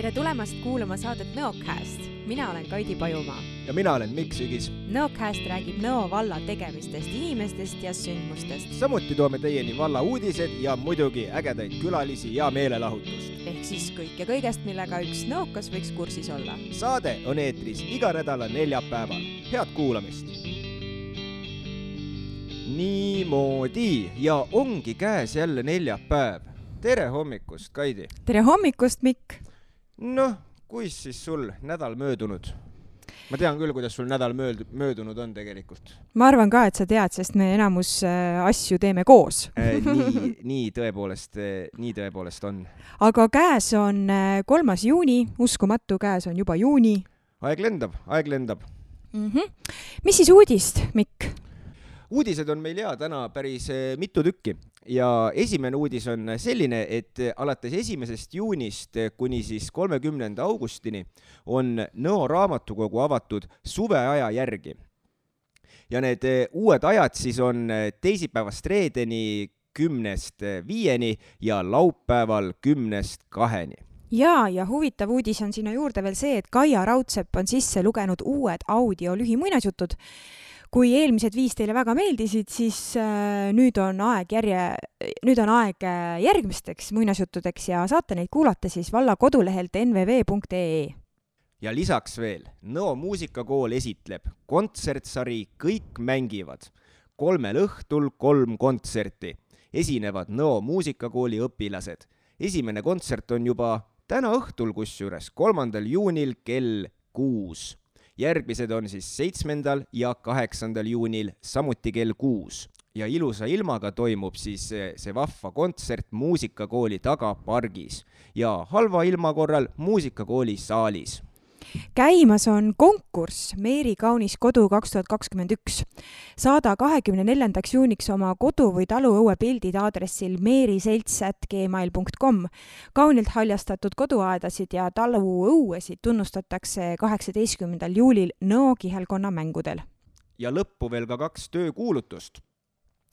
Tere tulemast kuulama saadet Nõocast. Mina olen Kaidi Pajumaa. Ja mina olen Mikk Sügis. Nõocast räägib Nõo valla tegemistest, inimestest ja sündmustest. Samuti toome teieni valla uudised ja muidugi ägedaid külalisi ja meelelahutust. Ehk siis kõik ja kõigest, millega üks nõokas võiks kursis olla. Saade on eetris iga nädala neljapäeval. Head kuulamist! Niimoodi ja ongi käes jälle neljapäev. Tere hommikust, Kaidi! Tere hommikust, Mikk! Noh, kuis siis sul nädal möödunud? Ma tean küll, kuidas sul nädal möödunud on tegelikult. Ma arvan ka, et sa tead, sest me enamus asju teeme koos. Nii tõepoolest on. Aga käes on 3. juuni, uskumatu, käes on juba juuni. Aeg lendab. Mis siis uudist, Mikk? Uudised on meil täna päris mitu tükki ja esimene uudis on selline, et alates 1. juunist kuni siis 30. augustini on Nõo raamatukogu avatud suveaja järgi. Ja need uued ajad siis on teisipäevast reedeni 10-5 ja laupäeval 10-2. Ja huvitav uudis on sinna juurde veel see, et Kaia Raudsepp on sisse lugenud uued audio lühimuinasjutud. Kui eelmised 5 teile väga meeldisid, siis nüüd on aeg järgmisteks muinasjuttudeks ja saate neid kuulata siis valla kodulehelt nvv.ee. Ja lisaks veel, Nõo muusikakool esitleb kontsertsari Kõik mängivad. 3 õhtul 3 kontserti. Esinevad Nõo muusikakooli õpilased. Esimene kontsert on juba täna õhtul kusjuures 3. juunil kell 6. Järgmised on siis 7. ja 8. juunil samuti kell 6. Ja ilusa ilmaga toimub siis see vahva kontsert muusikakooli tagapargis ja halva ilma korral muusikakooli saalis. Käimas on konkurss Meeri kaunis kodu 2021. Saada 24. juuniks oma kodu või taluõue pildid aadressil meeriselts@gmail.com. Kaunilt haljastatud koduaedasid ja taluõuesid tunnustatakse 18. juulil Nõo kihelkonna mängudel. Ja lõppu veel ka 2 töökuulutust.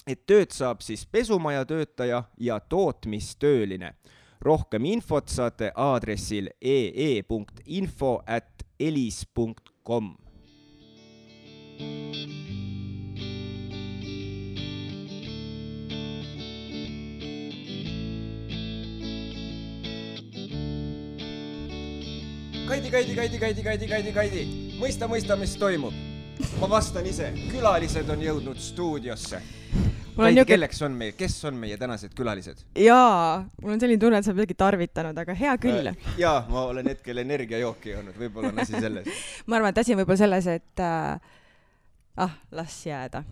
Et tööd saab siis pesumaja töötaja ja tootmistööline. Rohkem infot saate aadressil ee.info@elis.com. Kaidi. Mõista, mis toimub. Ma vastan ise. Külalised on jõudnud stuudiosse. Kaidi, kes on meie tänased külalised? Jaa, mul on selline tunne, et sa midagi tarvitanud, aga hea küll. Jaa, ma olen hetkel energiajooki joonud, võib-olla on asi selles. Ma arvan, et asi on võib-olla selles, et las jääda.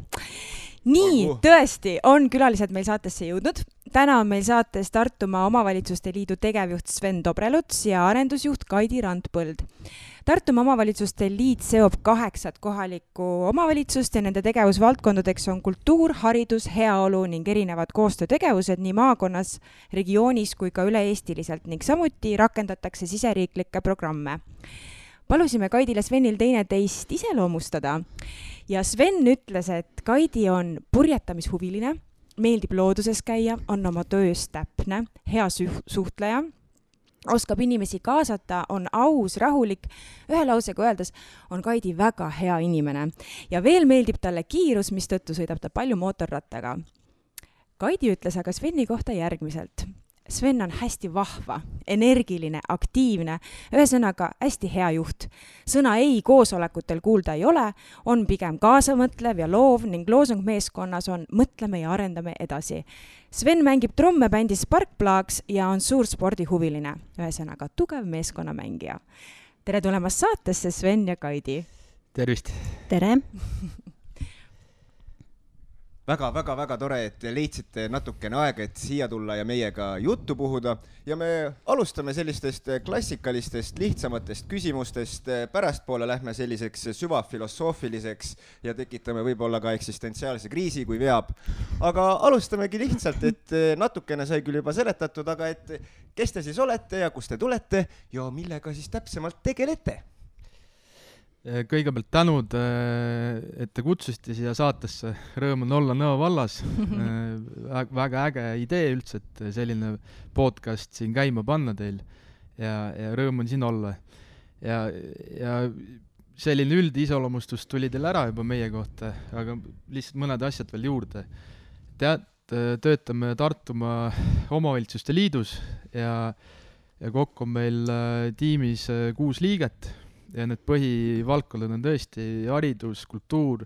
Nii, tõesti, on külalised meil saatesse jõudnud. Täna on meil saates Tartumaa Omavalitsuste Liidu tegevjuht Sven Dobreluts ja arendusjuht Kaidi Randpõld. Tartumaa Omavalitsuste Liit seob 8 kohalikku omavalitsust ja nende tegevusvaldkondadeks on kultuur, haridus, heaolu ning erinevad koostöötegevused nii maakonnas, regioonis kui ka üle-eestiliselt ning samuti rakendatakse siseriiklikke programme. Palusime Kaidile Svenil teineteist iseloomustada ja Sven ütles, et Kaidi on purjetamishuviline, meeldib looduses käia, on oma töös täpne, hea suhtleja, oskab inimesi kaasata, on aus, rahulik. Ühe lausega öeldes on Kaidi väga hea inimene ja veel meeldib talle kiirus, mistõttu sõidab ta palju mootorrattaga. Kaidi ütles aga Sveni kohta järgmiselt. Sven on hästi vahva, energiline, aktiivne, ühesõnaga hästi hea juht. Sõna ei koosolekutel kuulda ei ole, on pigem kaasamõtlev ja loov ning loosung meeskonnas on mõtleme ja arendame edasi. Sven mängib trumme bändis Sparkplags ja on suur spordihuviline, ühesõnaga tugev meeskonnamängija. Tere tulemast saatesse, Sven ja Kaidi. Tervist! Tere! Väga tore, et leidsite natukene aega, et siia tulla ja meiega juttu puhuda. Ja me alustame sellistest klassikalistest, lihtsamatest küsimustest. Pärastpoole lähme selliseks süvafilosoofiliseks ja tekitame võib-olla ka eksistentsiaalse kriisi, kui veab. Aga alustamegi lihtsalt, et natukene sai küll juba seletatud, aga et kes te siis olete ja kust te tulete ja millega siis täpsemalt tegelete? Kõigepealt tänud, et te kutsusite siia saatesse. Rõõm on olla Nõo vallas. Väga äge idee üldse, et selline podcast siin käima panna teil. ja rõõm on siin olla. Ja selline üldisoloomustus tuli teil ära juba meie kohta, aga lihtsalt mõned asjad veel juurde. Töötame Tartumaa Omavalitsuste Liidus ja kokku on meil tiimis 6 liiget ja need põhivaldkonnad on tõesti haridus, kultuur,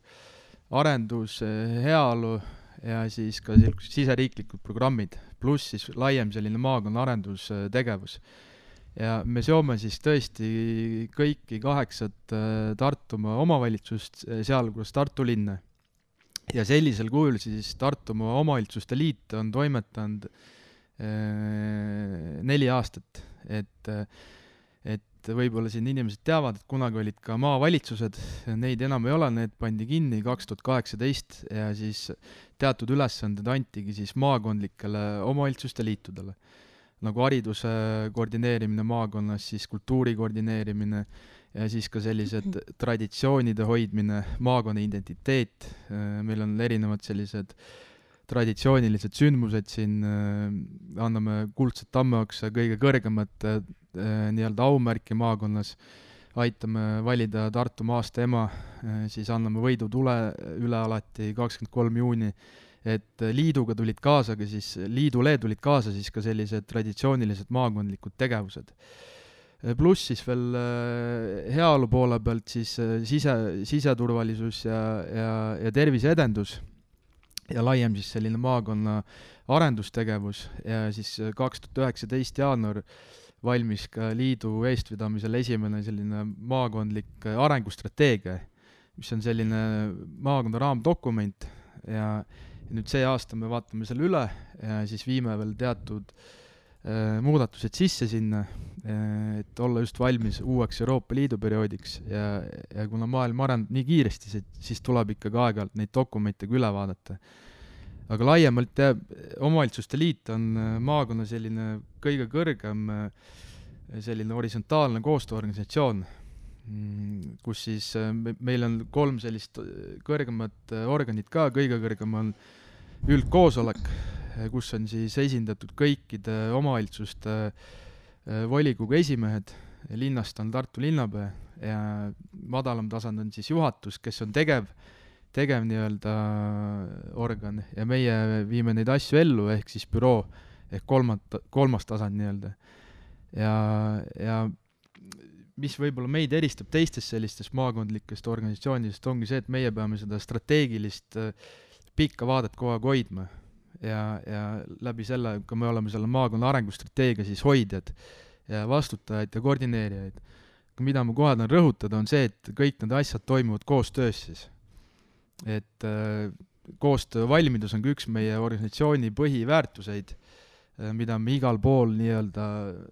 arendus, heaolu ja siis ka siseriiklikud programmid, pluss siis laiem selline maakonna arendustegevus. Ja me seome siis tõesti kõiki 8 Tartumaa omavalitsust, sealhulgas Tartu linna. Ja sellisel kujul siis Tartumaa Omavalitsuste Liit on toimetanud 4 aastat, et võib-olla siin inimesed teavad, et kunagi olid ka maavalitsused, neid enam ei ole, need pandi kinni 2018 ja siis teatud ülesanded antigi siis maakondlikele omavalitsuste liitudele. Nagu hariduse koordineerimine maakonnas, siis kultuuri koordineerimine ja siis ka sellised traditsioonide hoidmine, maakonna identiteet. Meil on erinevad sellised traditsioonilised sündmused siin, anname kuldset tammeoksa kõige kõrgemat nii-öelda aumärki maakonnas, aitame valida Tartu maasta ema, siis anname võidu tule üle alati 23. juuni, et liiduga tulid kaasa, siis liidule tulid kaasa siis ka sellised traditsioonilised maakondlikud tegevused. Pluss siis veel heaolu poole pealt siis siseturvalisus ja terviseedendus ja laiem siis selline maakonna arendustegevus ja siis 2019 jaanuar valmis ka liidu eestvedamisel esimene selline maakondlik arengustrateegia, mis on selline maakonna raamdokument ja nüüd see aasta me vaatame selle üle ja siis viime veel teatud muudatused sisse sinna, et olla just valmis uueks Euroopa Liidu perioodiks ja kuna maailm areneb nii kiiresti, siis tuleb ikkagi aeg-ajalt neid dokumente üle vaadata. Aga laiemalt omavalitsuste liit on maakonna selline kõige kõrgem selline horisontaalne koostööorganisatsioon, kus siis meil on 3 sellist kõrgemat organit ka, kõige kõrgem on üldkoosolek, kus on siis esindatud kõikide omavalitsuste volikogu esimehed, linnast on Tartu linnapea ja madalam tasand on siis juhatus, kes on tegev nii-öelda organ ja meie viime neid asju ellu, ehk siis büroo, ehk kolmas tasand nii-öelda. Ja mis võib-olla meid eristab teistest sellistest maakondlikest organisatsioonidest, ongi see, et meie peame seda strateegilist pikka vaadet kogu aeg hoidma ja läbi selle, kui me oleme selle maakonna arengustrateegia siis hoidjad ja vastutajaid ja koordineerijaid. Mida ma kohe tahan rõhutada, on see, et kõik need asjad toimuvad koostöös siis. Et koostöö valmidus on üks meie organisatsiooni põhiväärtuseid, mida me igal pool nii-öelda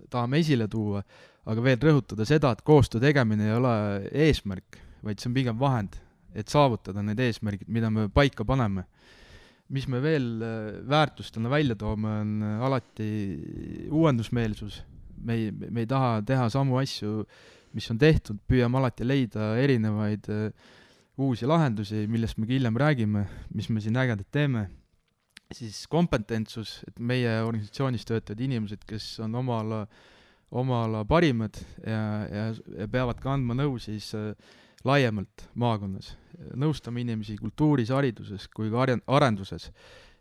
tahame esile tuua, aga veel rõhutada seda, et koostöö tegemine ei ole eesmärk, vaid see on pigem vahend, et saavutada need eesmärgid, mida me paika paneme. Mis me veel väärtustena välja toome, on alati uuendusmeelsus. Me ei taha teha samu asju, mis on tehtud, püüame alati leida erinevaid uusi lahendusi, millest me hiljem räägime, mis me siin ägedad teeme. Siis kompetentsus, et meie organisatsioonis töötavad inimesed, kes on oma ala parimad ja peavad ka andma nõu siis laiemalt maakonnas. Nõustame inimesi kultuuris, hariduses kui ka arenduses.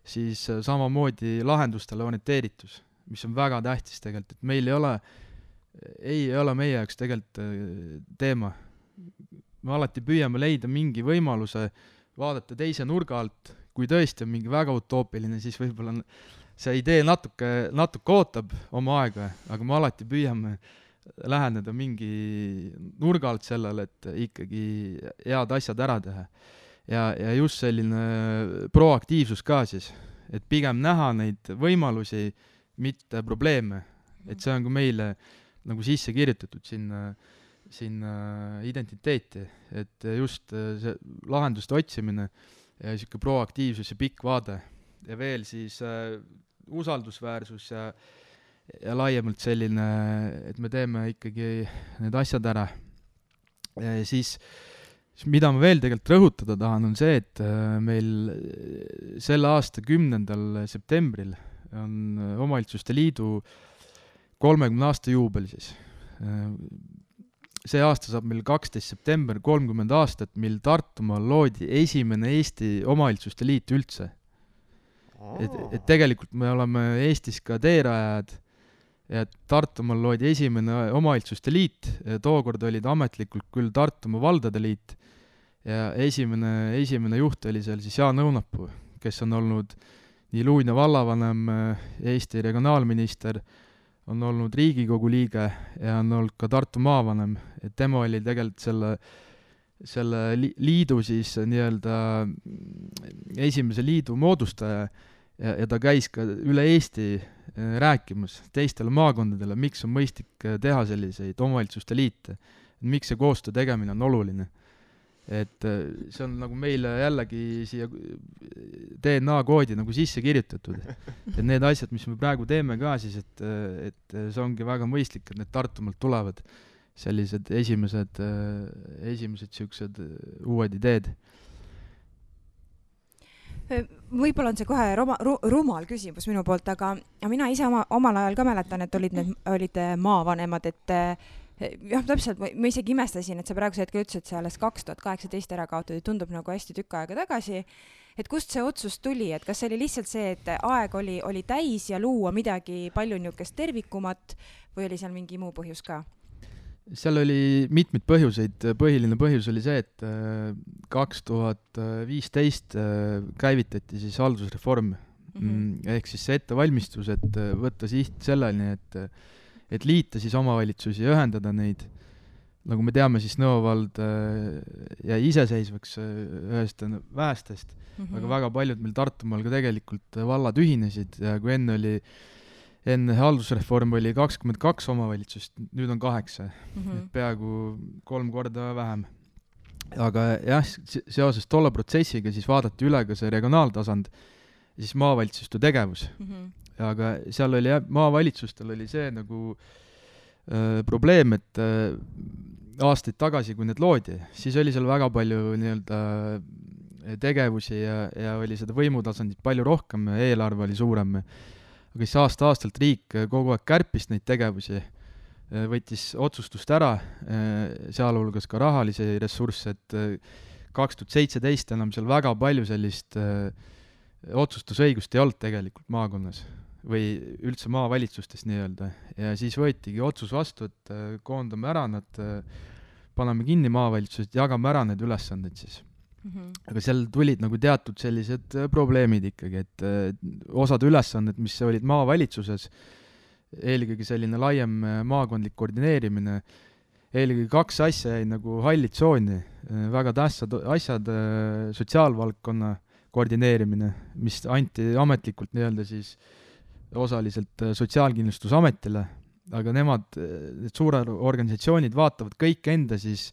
Siis samamoodi lahendustele orienteeritus, mis on väga tähtis tegelikult, et meil ei ole meie jaoks tegelikult teema. Me alati püüame leida mingi võimaluse vaadata teise nurga alt, kui tõesti on mingi väga utoopiline, siis võib-olla see idee natuke ootab oma aega, aga me alati püüame läheneda mingi nurga alt sellele, et ikkagi head asjad ära teha. Ja just selline proaktiivsus ka siis, et pigem näha neid võimalusi, mitte probleeme. Et see on ka meile nagu sisse kirjutatud sinna identiteeti, et just see lahenduste otsimine ja siuke proaktiivsus ja pikk vaade ja veel siis usaldusväärsus ja laiemalt selline, et me teeme ikkagi need asjad ära. Ja siis mida ma veel tegelikult rõhutada tahan, on see, et meil selle aasta 10. septembril on Omavalitsuste Liidu 30 aasta juubel siis. See aasta saab meil 12 september 30 aastat, mil Tartumaal loodi esimene Eesti omavalitsuste liit üldse. Et tegelikult me oleme Eestis ka teerajad ja Tartumaal loodi esimene omavalitsuste liit, tookord olid ametlikult küll Tartumaa valdade liit ja esimene juht oli seal siis Jaan Õunapuu, kes on olnud nii Luunja vallavanem, Eesti regionaalminister, on olnud Riigikogu liige ja on olnud ka Tartu maavanem, et tema oli tegelikult selle liidu siis nii-öelda esimese liidu moodustaja ja ta käis ka üle Eesti rääkimas teistele maakondadele, miks on mõistlik teha selliseid omavalitsuste liite, miks see koostöö tegemine on oluline. Et see on nagu meile jällegi siia DNA-koodi nagu sisse kirjutatud. Et need asjad, mis me praegu teeme ka siis, et see ongi väga mõistlik, et need Tartumaalt tulevad sellised esimesed siuksed uued ideed. Võib-olla on see kohe rumal küsimus minu poolt, aga mina ise omal ajal ka mäletan, et olid maavanemad, et jah, täpselt, ma isegi imestasin, et sa praeguse hetkel ütlesid, et see alles 2018 ära kaotud, tundub nagu hästi tükk aega tagasi. Et kust see otsus tuli, et kas see oli lihtsalt see, et aeg oli täis ja luua midagi palju niukest tervikumat või oli seal mingi muu põhjus ka? Seal oli mitmeid põhjuseid. Põhiline põhjus oli see, et 2015 käivitati siis haldusreform. Ehk siis see ettevalmistus, et võtta siht selleni, et liita siis omavalitsusi ja ühendada neid. Nagu me teame, siis Nõo vald jäi iseseisvaks ühest väestest, aga väga paljud meil Tartumaal ka tegelikult vallad ühinesid ja kui enne haldusreform oli 22 omavalitsust, nüüd on 8, peaaegu 3 korda vähem. Aga jah, seoses tolle protsessiga siis vaadati üle ka see regionaaltasand ja siis maavalitsuste tegevus. Aga seal oli maavalitsustel oli see nagu probleem, et aastaid tagasi, kui need loodi, siis oli seal väga palju nii-öelda tegevusi ja oli seda võimutasandit palju rohkem, eelarve oli suurem. Aga siis aasta-aastalt riik kogu aeg kärpis neid tegevusi, võttis otsustust ära, sealhulgas ka rahalisi ressursse, et 2017 enam seal väga palju sellist otsustusõigust ei olnud tegelikult maakonnas või üldse maavalitsustes nii-öelda. Ja siis võetigi otsus vastu, et koondame ära nad, paneme kinni maavalitsused, jagame ära need ülesanded siis. Aga seal tulid nagu teatud sellised probleemid ikkagi, et osad ülesanded, mis olid maavalitsuses, eelkõige selline laiem maakondlik koordineerimine, eelkõige 2 asja jäi nagu halli tsooni, väga tähtsad asjad, sotsiaalvaldkonna koordineerimine, mis anti ametlikult nii-öelda siis osaliselt Sotsiaalkindlustusametile, aga need suured organisatsioonid vaatavad kõik enda siis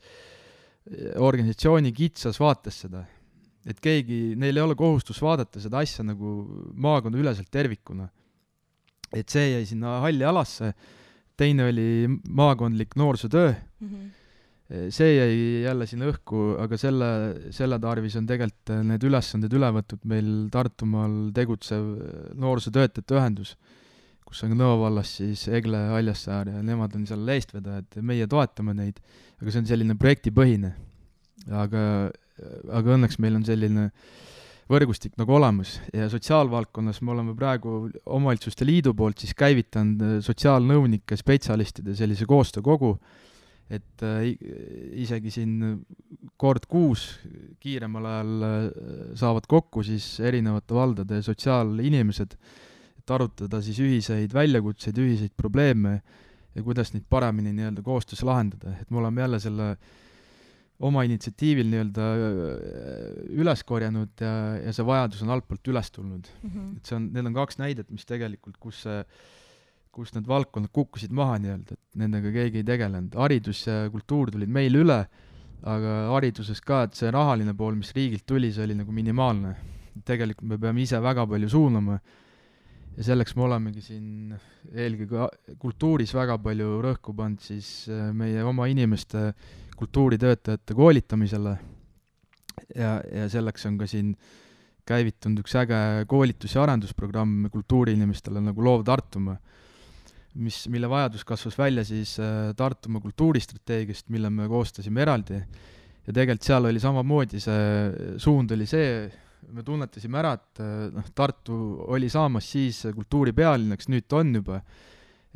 organisatsiooni kitsas vaates seda, et neil ei ole kohustus vaadata seda asja nagu maakonna üleselt tervikuna. Et see jäi sinna halli alasse, teine oli maakondlik noorsootöö, see jäi jälle sinna õhku, aga selle tarvis on tegelikult need ülesanded üle võtud meil Tartumaal tegutsev noorsootöötajate ühendus, kus on Nõo vallas siis Egle Haljassaar ja nemad on seal eestvedajad, meie toetame neid, aga see on selline projektipõhine. Aga õnneks meil on selline võrgustik nagu olemas ja sotsiaalvaldkonnas me oleme praegu omavalitsuste liidu poolt siis käivitanud sotsiaalnõunike spetsialistide sellise koostöökogu, et isegi siin kord 6 kiiremal ajal saavad kokku siis erinevate valdade sotsiaalinimesed, et arutada siis ühiseid väljakutseid, ühiseid probleeme ja kuidas neid paremini nii-öelda koostöös lahendada. Et me oleme jälle selle oma initsiatiivil nii-öelda üles korjanud ja see vajadus on altpoolt üles tulnud. Et need on 2 näidet, mis tegelikult, kus need valdkonnad kukkusid maha nii-öelda, et nendega keegi ei tegelenud. Haridus ja kultuur tulid meil üle, aga hariduses ka, et see rahaline pool, mis riigilt tuli, see oli nagu minimaalne. Tegelikult me peame ise väga palju suunama ja selleks me olemegi siin eelkõige kultuuris väga palju rõhku pannud siis meie oma inimeste kultuuritöötajate koolitamisele ja selleks on ka siin käivitunud üks äge koolitus- ja arendusprogramm kultuuriinimestele nagu Loov Tartumaa, mille vajadus kasvas välja siis Tartumaa kultuuristrateegiast, mille me koostasime eraldi. Ja tegelikult seal oli samamoodi, see suund oli see, me tunnetasime ära, et Tartu oli saamas siis kultuuripealinnaks, nüüd ta on juba,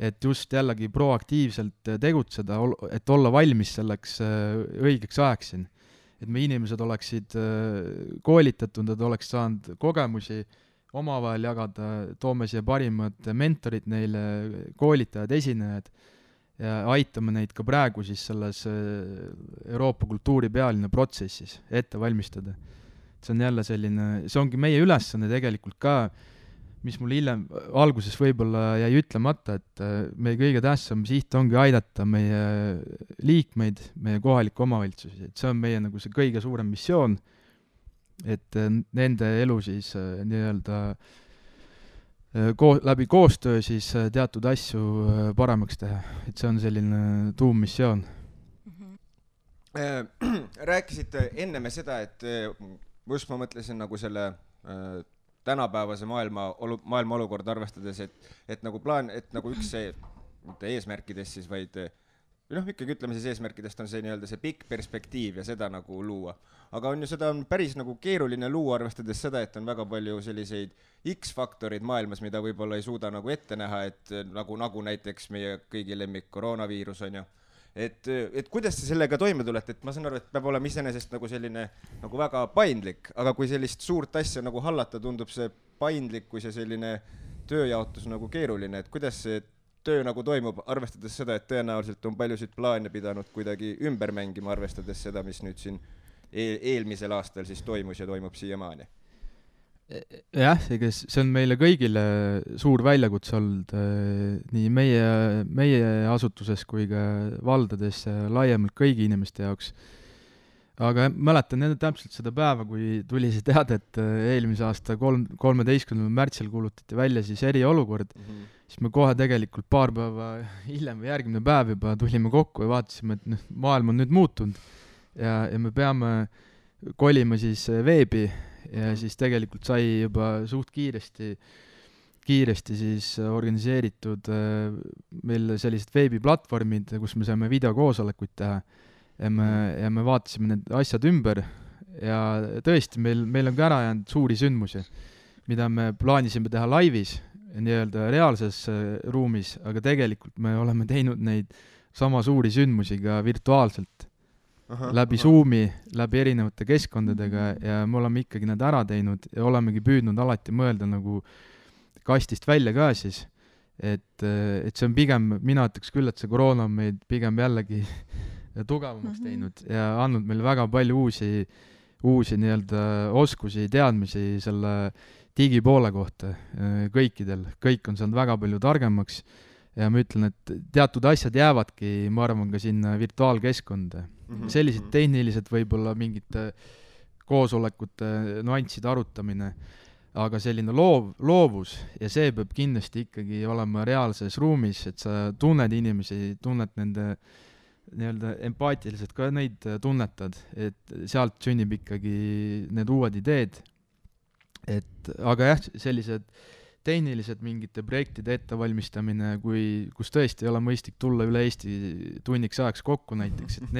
et just jällegi proaktiivselt tegutseda, et olla valmis selleks õigeks ajaks siin. Et me inimesed oleksid koolitatud, et oleks saanud kogemusi omavahel jagada, toome siia parimad mentorid neile, koolitajad, esinejad ja aitame neid ka praegu siis selles Euroopa kultuuripealinna protsessis ette valmistada. See on jälle selline, see ongi meie ülesanne tegelikult ka, mis mul hiljem alguses võib-olla jäi ütlemata, et meie kõige tähtsam siht ongi aidata meie liikmeid, meie kohalikke omavalitsusi, et see on meie nagu see kõige suurem missioon, et nende elu siis nii-öelda läbi koostöö siis teatud asju paremaks teha, et see on selline tuummissioon. Rääkisite enne me seda, et just ma mõtlesin nagu selle tänapäevase maailma olukord arvestades, et nagu plaan, et nagu üks see, mitte eesmärkidest siis, vaid ikkagi ütleme siis eesmärkidest on see nii-öelda see pikk perspektiiv ja seda nagu luua. Aga on ju seda on päris nagu keeruline luua, arvestades seda, et on väga palju selliseid X-faktorid maailmas, mida võib-olla ei suuda nagu ette näha, et nagu näiteks meie kõigi lemmik koroonaviirus on ju. Et kuidas te sellega toime tulete, et ma saan aru, et peab olema iseenesest nagu selline nagu väga paindlik, aga kui sellist suurt asja nagu hallata, tundub see paindlikkus ja selline tööjaotus nagu keeruline, et kuidas see töö nagu toimub, arvestades seda, et tõenäoliselt on paljusid plaane pidanud kuidagi ümber mängima, arvestades seda, mis nüüd siin eelmisel aastal siis toimus ja toimub siiamaani. Jah, see on meile kõigile suur väljakutse olnud nii meie asutuses kui ka valdades laiemalt kõigi inimeste jaoks. Aga mäletan täpselt seda päeva, kui tuli see teade, et eelmise aasta 13. märtsil kuulutati välja siis eriolukord, siis me kohe tegelikult paar päeva hiljem või järgmine päev juba tulime kokku ja vaatasime, et maailm on nüüd muutunud ja me peame kolima siis veebi ja siis tegelikult sai juba suht kiiresti siis organiseeritud meil sellised veebiplatvormid, kus me saame videokoosolekuid teha ja me vaatasime need asjad ümber ja tõesti meil on ka ära jäänud suuri sündmusi, mida me plaanisime teha laivis, nii-öelda reaalses ruumis, aga tegelikult me oleme teinud neid sama suuri sündmusi ka virtuaalselt. Läbi Zoomi, läbi erinevate keskkondadega ja me oleme ikkagi need ära teinud ja olemegi püüdnud alati mõelda nagu kastist välja ka siis, et see on pigem, mina ütleks küll, et see koroona on meid pigem jällegi tugevamaks teinud ja andnud meile väga palju uusi nii-öelda oskusi, teadmisi selle digipoole kohta kõikidel, kõik on saanud väga palju targemaks ja ma ütlen, et teatud asjad jäävadki, ma arvan, ka sinna virtuaalkeskkonda. Sellised tehnilised võib-olla mingite koosolekute nüansside arutamine, aga selline loovus ja see peab kindlasti ikkagi olema reaalses ruumis, et sa tunned inimesi, tunned nende nii-öelda empaatiliselt ka neid tunnetad, et sealt sünnib ikkagi need uued ideed. Aga jah, sellised tehnilised mingite projektide ettevalmistamine, kus tõesti ei ole mõistlik tulla üle Eesti tunniks ajaks kokku näiteks, et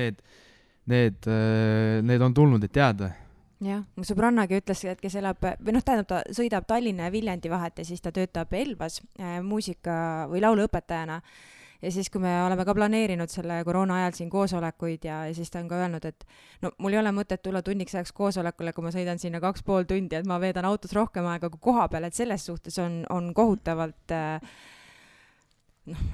need on tulnud, et jääda. Jah, mu sõbrannagi ütles, et kes elab, või tähendab, ta sõidab Tallinna ja Viljandi vahet ja siis ta töötab Elvas muusika- või lauluõpetajana. Ja siis, kui me oleme ka planeerinud selle koroona ajal siin koosolekuid ja siis ta on ka öelnud, et no mul ei ole mõtet tulla tunniks ajaks koosolekule, kui ma sõidan sinna 2,5 tundi, et ma veedan autos rohkem aega kui koha peal, et selles suhtes on kohutavalt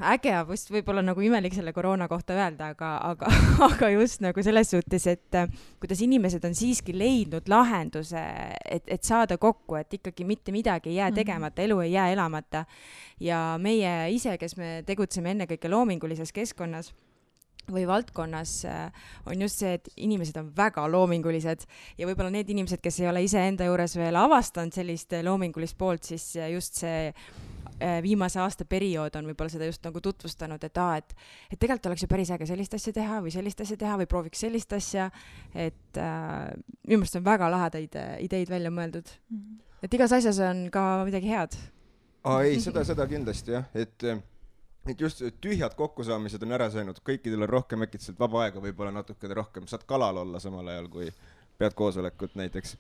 äge, vist võib-olla nagu imelik selle koroona kohta öelda, aga just nagu selles suhtes, et kuidas inimesed on siiski leidnud lahenduse, et saada kokku, et ikkagi mitte midagi ei jää tegemata, elu ei jää elamata. Ja meie ise, kes me tegutseme ennekõike loomingulises keskkonnas või valdkonnas, on just see, et inimesed on väga loomingulised ja võib-olla need inimesed, kes ei ole ise enda juures veel avastanud sellist loomingulist poolt, siis just see viimase aasta periood on võib-olla seda just nagu tutvustanud, et tegelikult oleks ju päris äge sellist asja teha või sellist asja teha või prooviks sellist asja, et minu meelest on väga lahedaid ideid välja mõeldud. Et igas asjas on ka midagi head. Ei, seda kindlasti jah, et et just tühjad kokkusaamised on ära söönud, kõikidel on rohkem äkitselt vaba aega, võib-olla natuke rohkem, saad kalal olla samal ajal, kui pead koosolekut näiteks.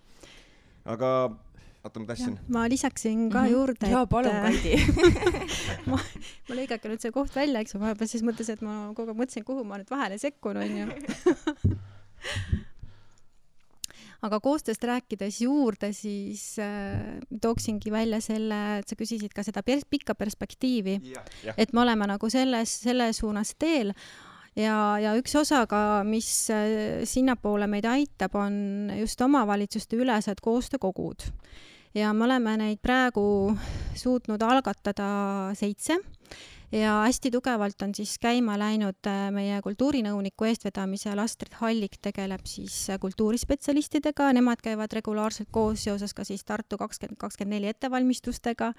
Aga oota, ma tassin. Ma lisaksin ka juurde, Jaa, palun, Kaidi. ma lõigake nüüd see koht välja, eks ma siis mõtlesin, et ma kogu aeg mõtlesin, kuhu ma nüüd vahele sekkun, on ju. Aga koostööst rääkides juurde, siis tooksingi välja selle, et sa küsisid ka seda pikka perspektiivi, et me oleme nagu selle suunas teel ja üks osa ka, mis sinnapoole meid aitab, on just omavalitsuste ülesed koostöökogud. Ja me oleme neid praegu suutnud algatada 7 ja hästi tugevalt on siis käima läinud meie kultuurinõuniku eestvedamisel Astrid Hallik tegeleb siis kultuurispetsialistidega, nemad käivad regulaarselt koos seoses ka siis Tartu 2024 ettevalmistustega.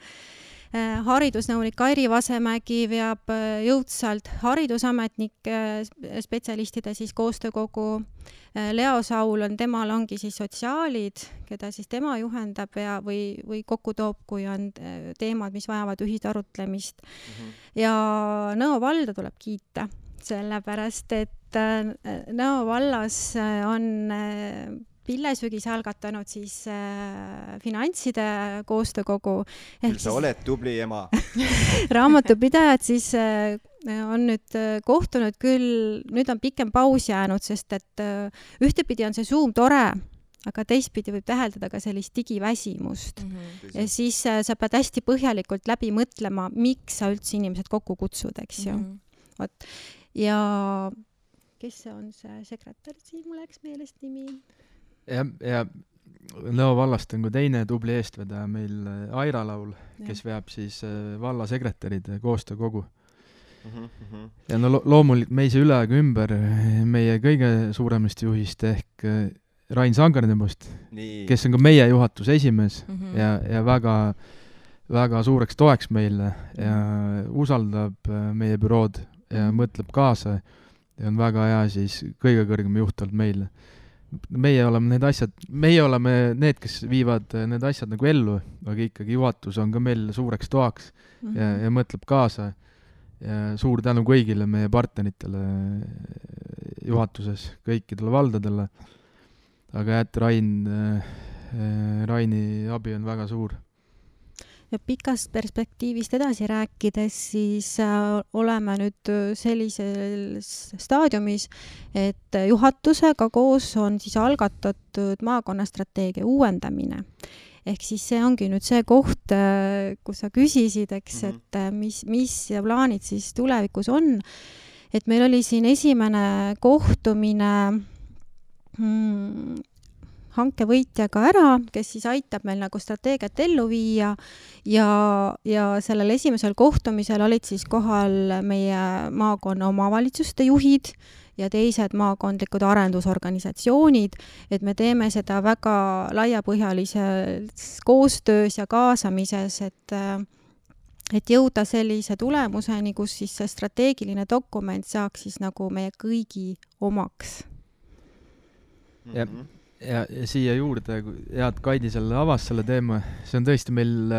Haridusnõunik Airi Vasemägi veab jõudsalt haridusametnike spetsialistide siis koostöökogu. Leo Saul temal ongi siis sotsiaalid, keda siis tema juhendab või kokku toob, kui on teemad, mis vajavad ühist arutlemist. Ja Nõo valda tuleb kiita, sellepärast, et Nõo vallas on Pillesügis algatanud siis finantside koostöökogu. Küll sa oled tubli ema. Raamatupidajad siis on nüüd kohtunud küll, nüüd on pikem paus jäänud, sest et ühtepidi on see Zoom tore, aga teistpidi võib täheldada ka sellist digiväsimust. Ja siis sa pead hästi põhjalikult läbi mõtlema, miks sa üldse inimesed kokku kutsud, eks ju. Ja kes on see sekretär siin, mul läks meelest nimi? Ja Nõo vallast on ka teine tubli eestvedaja meil Aira Laul, kes veab siis vallasekretäride koostöökogu. Ja no loomulikult me ei saa üle ega ümber meie kõige suuremast juhist ehk Rain Sangarnebost, kes on ka meie juhatuse esimees ja väga, väga suureks toeks meile ja usaldab meie bürood ja mõtleb kaasa ja on väga hea siis kõige kõrgem juht olnud meile. Meie oleme need, kes viivad need asjad nagu ellu, aga ikkagi juhatus on ka meil suureks toaks ja mõtleb kaasa. Ja suur tänu kõigile meie partneritele juhatuses, kõikidele valdadele. Aga Raini abi on väga suur. Ja pikast perspektiivist edasi rääkides, siis oleme nüüd sellises staadiumis, et juhatusega koos on siis algatatud maakonnastrateegia uuendamine. Ehk siis see ongi nüüd see koht, kus sa küsisid, eks, et mis plaanid siis tulevikus on. Et meil oli siin esimene kohtumine hankevõitjaga ära, kes siis aitab meil nagu strateegiat ellu viia ja sellel esimesel kohtumisel olid siis kohal meie maakonna omavalitsuste juhid ja teised maakondlikud arendusorganisatsioonid, et me teeme seda väga laiapõhjalises koostöös ja kaasamises, et jõuda sellise tulemuseni, kus siis see strateegiline dokument saaks siis nagu meie kõigi omaks. Ja siia juurde, head Kaidi selle avas selle teema, see on tõesti meil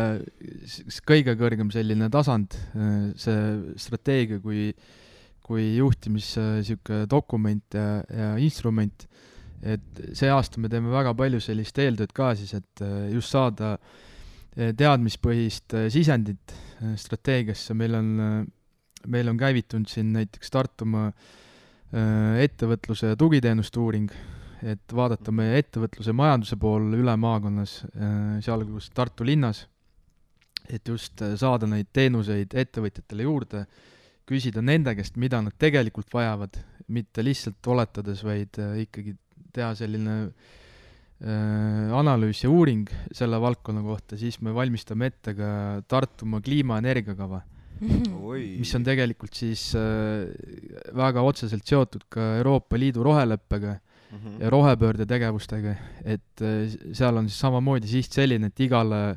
kõige kõrgem selline tasand, see strateegia kui juhtimis dokument ja instrument, et see aasta me teeme väga palju sellist eeltööd ka siis, et just saada teadmispõhist sisendit strateegiasse. Meil on käivitunud siin näiteks Tartumaa ettevõtluse ja tugiteenuste uuring, et vaadata meie ettevõtluse majanduse pool üle maakonnas, sealhulgas Tartu linnas, et just saada neid teenuseid ettevõtjatele juurde, küsida nende käest, mida nad tegelikult vajavad, mitte lihtsalt oletades, vaid ikkagi teha selline analüüs ja uuring selle valdkonna kohta, siis me valmistame ette ka Tartumaa kliimaenergiakava, mis on tegelikult siis väga otseselt seotud ka Euroopa Liidu roheleppega ja rohepöörde tegevustega, et seal on siis samamoodi siht selline, et igale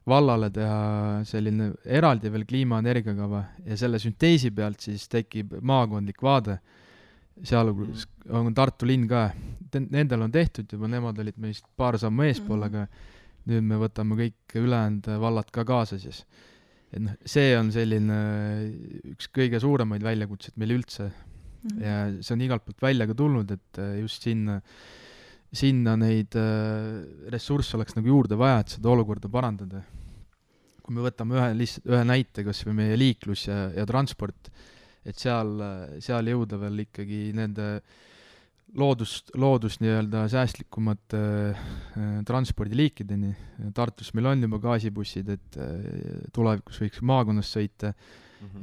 vallale teha selline eraldi veel kliimaenergiakava ja selle sünteesi pealt siis tekib maakondlik vaade. Seal on Tartu linn ka. Nendel on tehtud juba, nemad olid meist paar sammu eespool, aga nüüd me võtame kõik ülejäänud vallad ka kaasa siis. et noh, see on selline üks kõige suuremaid väljakutseid meil üldse ja see on igalt poolt välja ka tulnud, et just sinna neid ressursse oleks nagu juurde vaja, et seda olukorda parandada. Kui me võtame ühe näite, kas või meie liiklus ja transport, et seal jõuda veel ikkagi nende loodust nii-öelda säästlikumate transpordiliikideni. Tartus meil on juba gaasibussid, et tulevikus võiks maakonnas sõita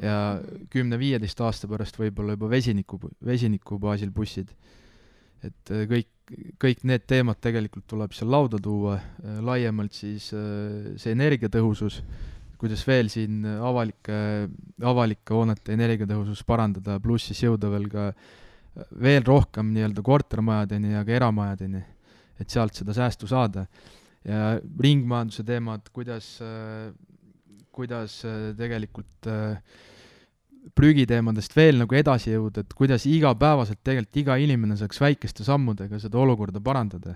ja 10-15 aasta pärast võib-olla juba vesiniku baasil bussid. Et kõik need teemad tegelikult tuleb seal lauda tuua, laiemalt siis see energiatõhusus, kuidas veel siin avalike hoonete energiatõhusus parandada, pluss siis jõuda veel rohkem nii-öelda kortermajadeni ja ka eramajadeni, et sealt seda säästu saada. Ja ringmajanduse teemad, kuidas tegelikult prügiteemadest veel nagu edasi jõuda, et kuidas igapäevaselt tegelikult iga inimene saaks väikeste sammudega seda olukorda parandada.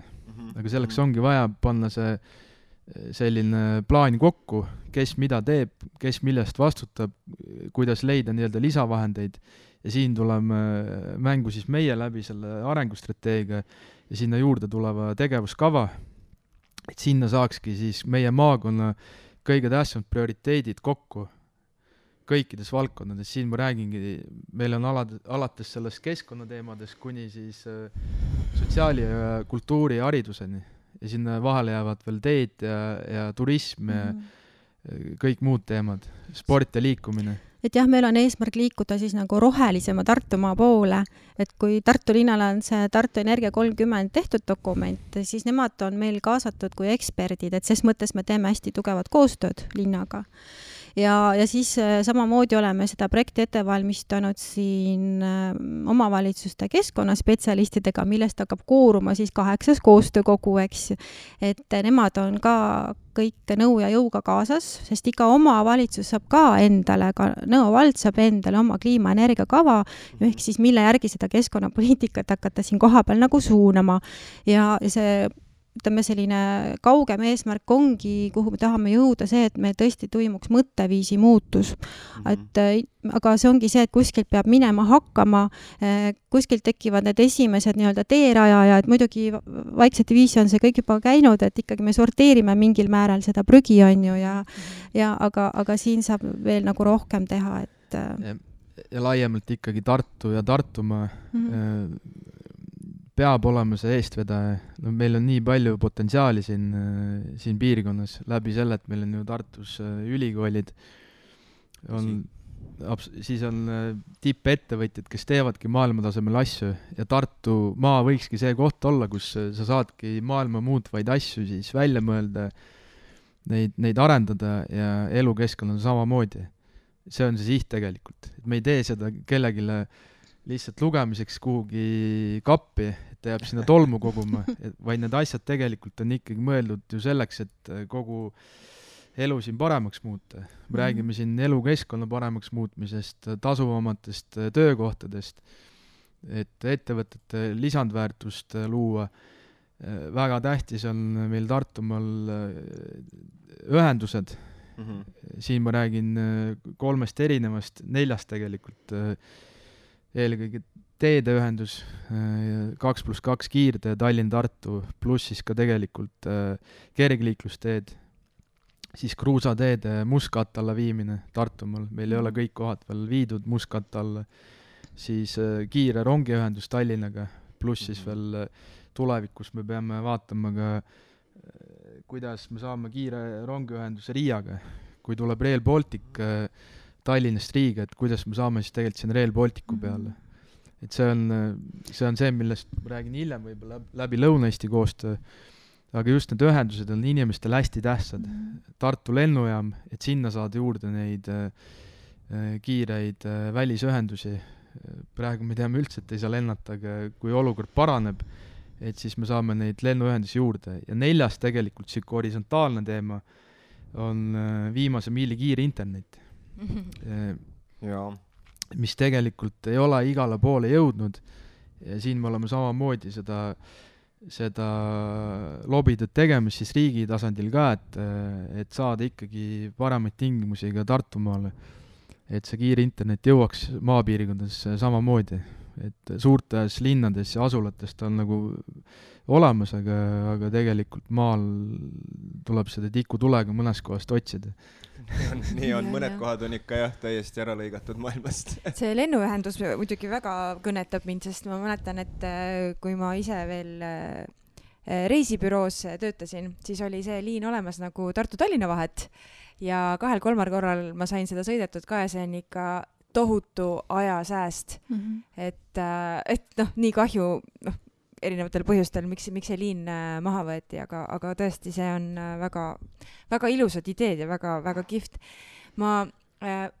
Aga selleks ongi vaja panna see selline plaan kokku, kes mida teeb, kes millest vastutab, kuidas leida nii-öelda lisavahendeid ja siin tuleme mängu siis meie läbi selle arengustrateegia ja sinna juurde tuleva tegevuskava, et sinna saakski siis meie maakonna kõige tähtsamad prioriteedid kokku kõikides valdkondades. Siin ma räägingi, meil on alates sellest keskkonnateemadest kuni siis sotsiaali ja kultuuri ja hariduseni ja sinna vahele jäävad veel teed ja turism ja kõik muud teemad, sport ja liikumine. Et jah, meil on eesmärk liikuda siis nagu rohelisema Tartumaa poole, et kui Tartu linnale on see Tartu Energia 30 tehtud dokument, siis nemad on meil kaasatud kui eksperdid, et ses mõttes me teeme hästi tugevat koostööd linnaga. Ja siis samamoodi oleme seda projekti ette valmistanud siin omavalitsuste keskkonnaspetsialistidega, millest hakkab kooruma siis 8 koostöökogu, eks. Et nemad on ka kõik nõu ja jõuga kaasas, sest iga omavalitsus saab ka endale, ka Nõo vald saab endale oma kliimaenergiakava, ehk siis mille järgi seda keskkonnapoliitikat hakata siin kohapeal nagu suunama. Ja see ütleme selline kaugem eesmärk ongi, kuhu me tahame jõuda see, et me tõesti toimuks mõtteviisi muutus. Aga see ongi see, et kuskilt peab minema hakkama, kuskilt tekivad need esimesed nii-öelda teeraja, et muidugi vaikselt viisi on see kõik juba käinud, et ikkagi me sorteerime mingil määral seda prügi on ju aga siin saab veel nagu rohkem teha, et ja laiemalt ikkagi Tartu ja Tartumaa peab olema see eestvedaja. No meil on nii palju potentsiaali siin piirkonnas läbi selle, et meil on ju Tartus ülikoolid, siis on tippettevõtjad, kes teevadki maailmatasemel asju ja Tartu maa võikski see koht olla, kus sa saadki maailma muutvaid asju siis välja mõelda, neid arendada ja elukeskkond on samamoodi. See on see siht tegelikult. Et me ei tee seda kellegile lihtsalt lugemiseks kuhugi kappi, et jääb sinna tolmu koguma, vaid need asjad tegelikult on ikkagi mõeldud ju selleks, et kogu elu siin paremaks muuta. Me räägime siin elukeskkonna paremaks muutmisest, tasuvamatest töökohtadest, et ettevõtete lisandväärtust luua. Väga tähtis on meil Tartumaal ühendused. Siin ma räägin 3 erinevast, 4 tegelikult. Eelkõige teedeühendus, 2+2 kiirtee Tallinn-Tartu, pluss siis ka tegelikult kergliiklusteed, siis kruusateede mustkatte alla viimine Tartumaal, meil ei ole kõik kohad veel viidud mustkatte alla, siis kiire rongiühendus Tallinnaga, pluss siis veel tulevikus me peame vaatama ka, kuidas me saame kiire rongiühenduse Riiaga, kui tuleb Rail Baltic Tallinnast Riiga, et kuidas me saame siis tegelikult siin Rail Balticu peale. Et see on see, millest ma räägin hiljem võib-olla läbi Lõuna-Eesti koostöö, aga just need ühendused on inimestele hästi tähtsad. Tartu lennujaam, et sinna saada juurde neid kiireid välisühendusi. Praegu me teame üldse, et ei saa lennata, aga kui olukord paraneb, et siis me saame neid lennuühendusi juurde. Ja 4. tegelikult siuke horisontaalne teema on viimase miili kiire internet. Mis tegelikult ei ole igale poole jõudnud ja siin me oleme samamoodi seda seda lobitööd tegemas siis riigi tasandil ka, et saada ikkagi paremaid tingimusi ka Tartumaale, et see kiire internet jõuaks maapiirkondades samamoodi, et suurtes linnades ja asulates ta on nagu olemas, aga tegelikult maal tuleb seda tikutulega mõnest kohast otsida. Nii on, mõned kohad on ikka jah, täiesti ära lõigatud maailmast. See lennuühendus muidugi väga kõnetab mind, sest ma mäletan, et kui ma ise veel reisibüroos töötasin, siis oli see liin olemas nagu Tartu-Tallinna vahet ja 2-3 korral ma sain seda sõidetud ka ja see on ikka tohutu ajasääst. Et noh, nii kahju, erinevatel põhjustel, miks see liin maha võeti, aga tõesti, see on väga, väga ilusad ideed ja väga, väga kihvt. Ma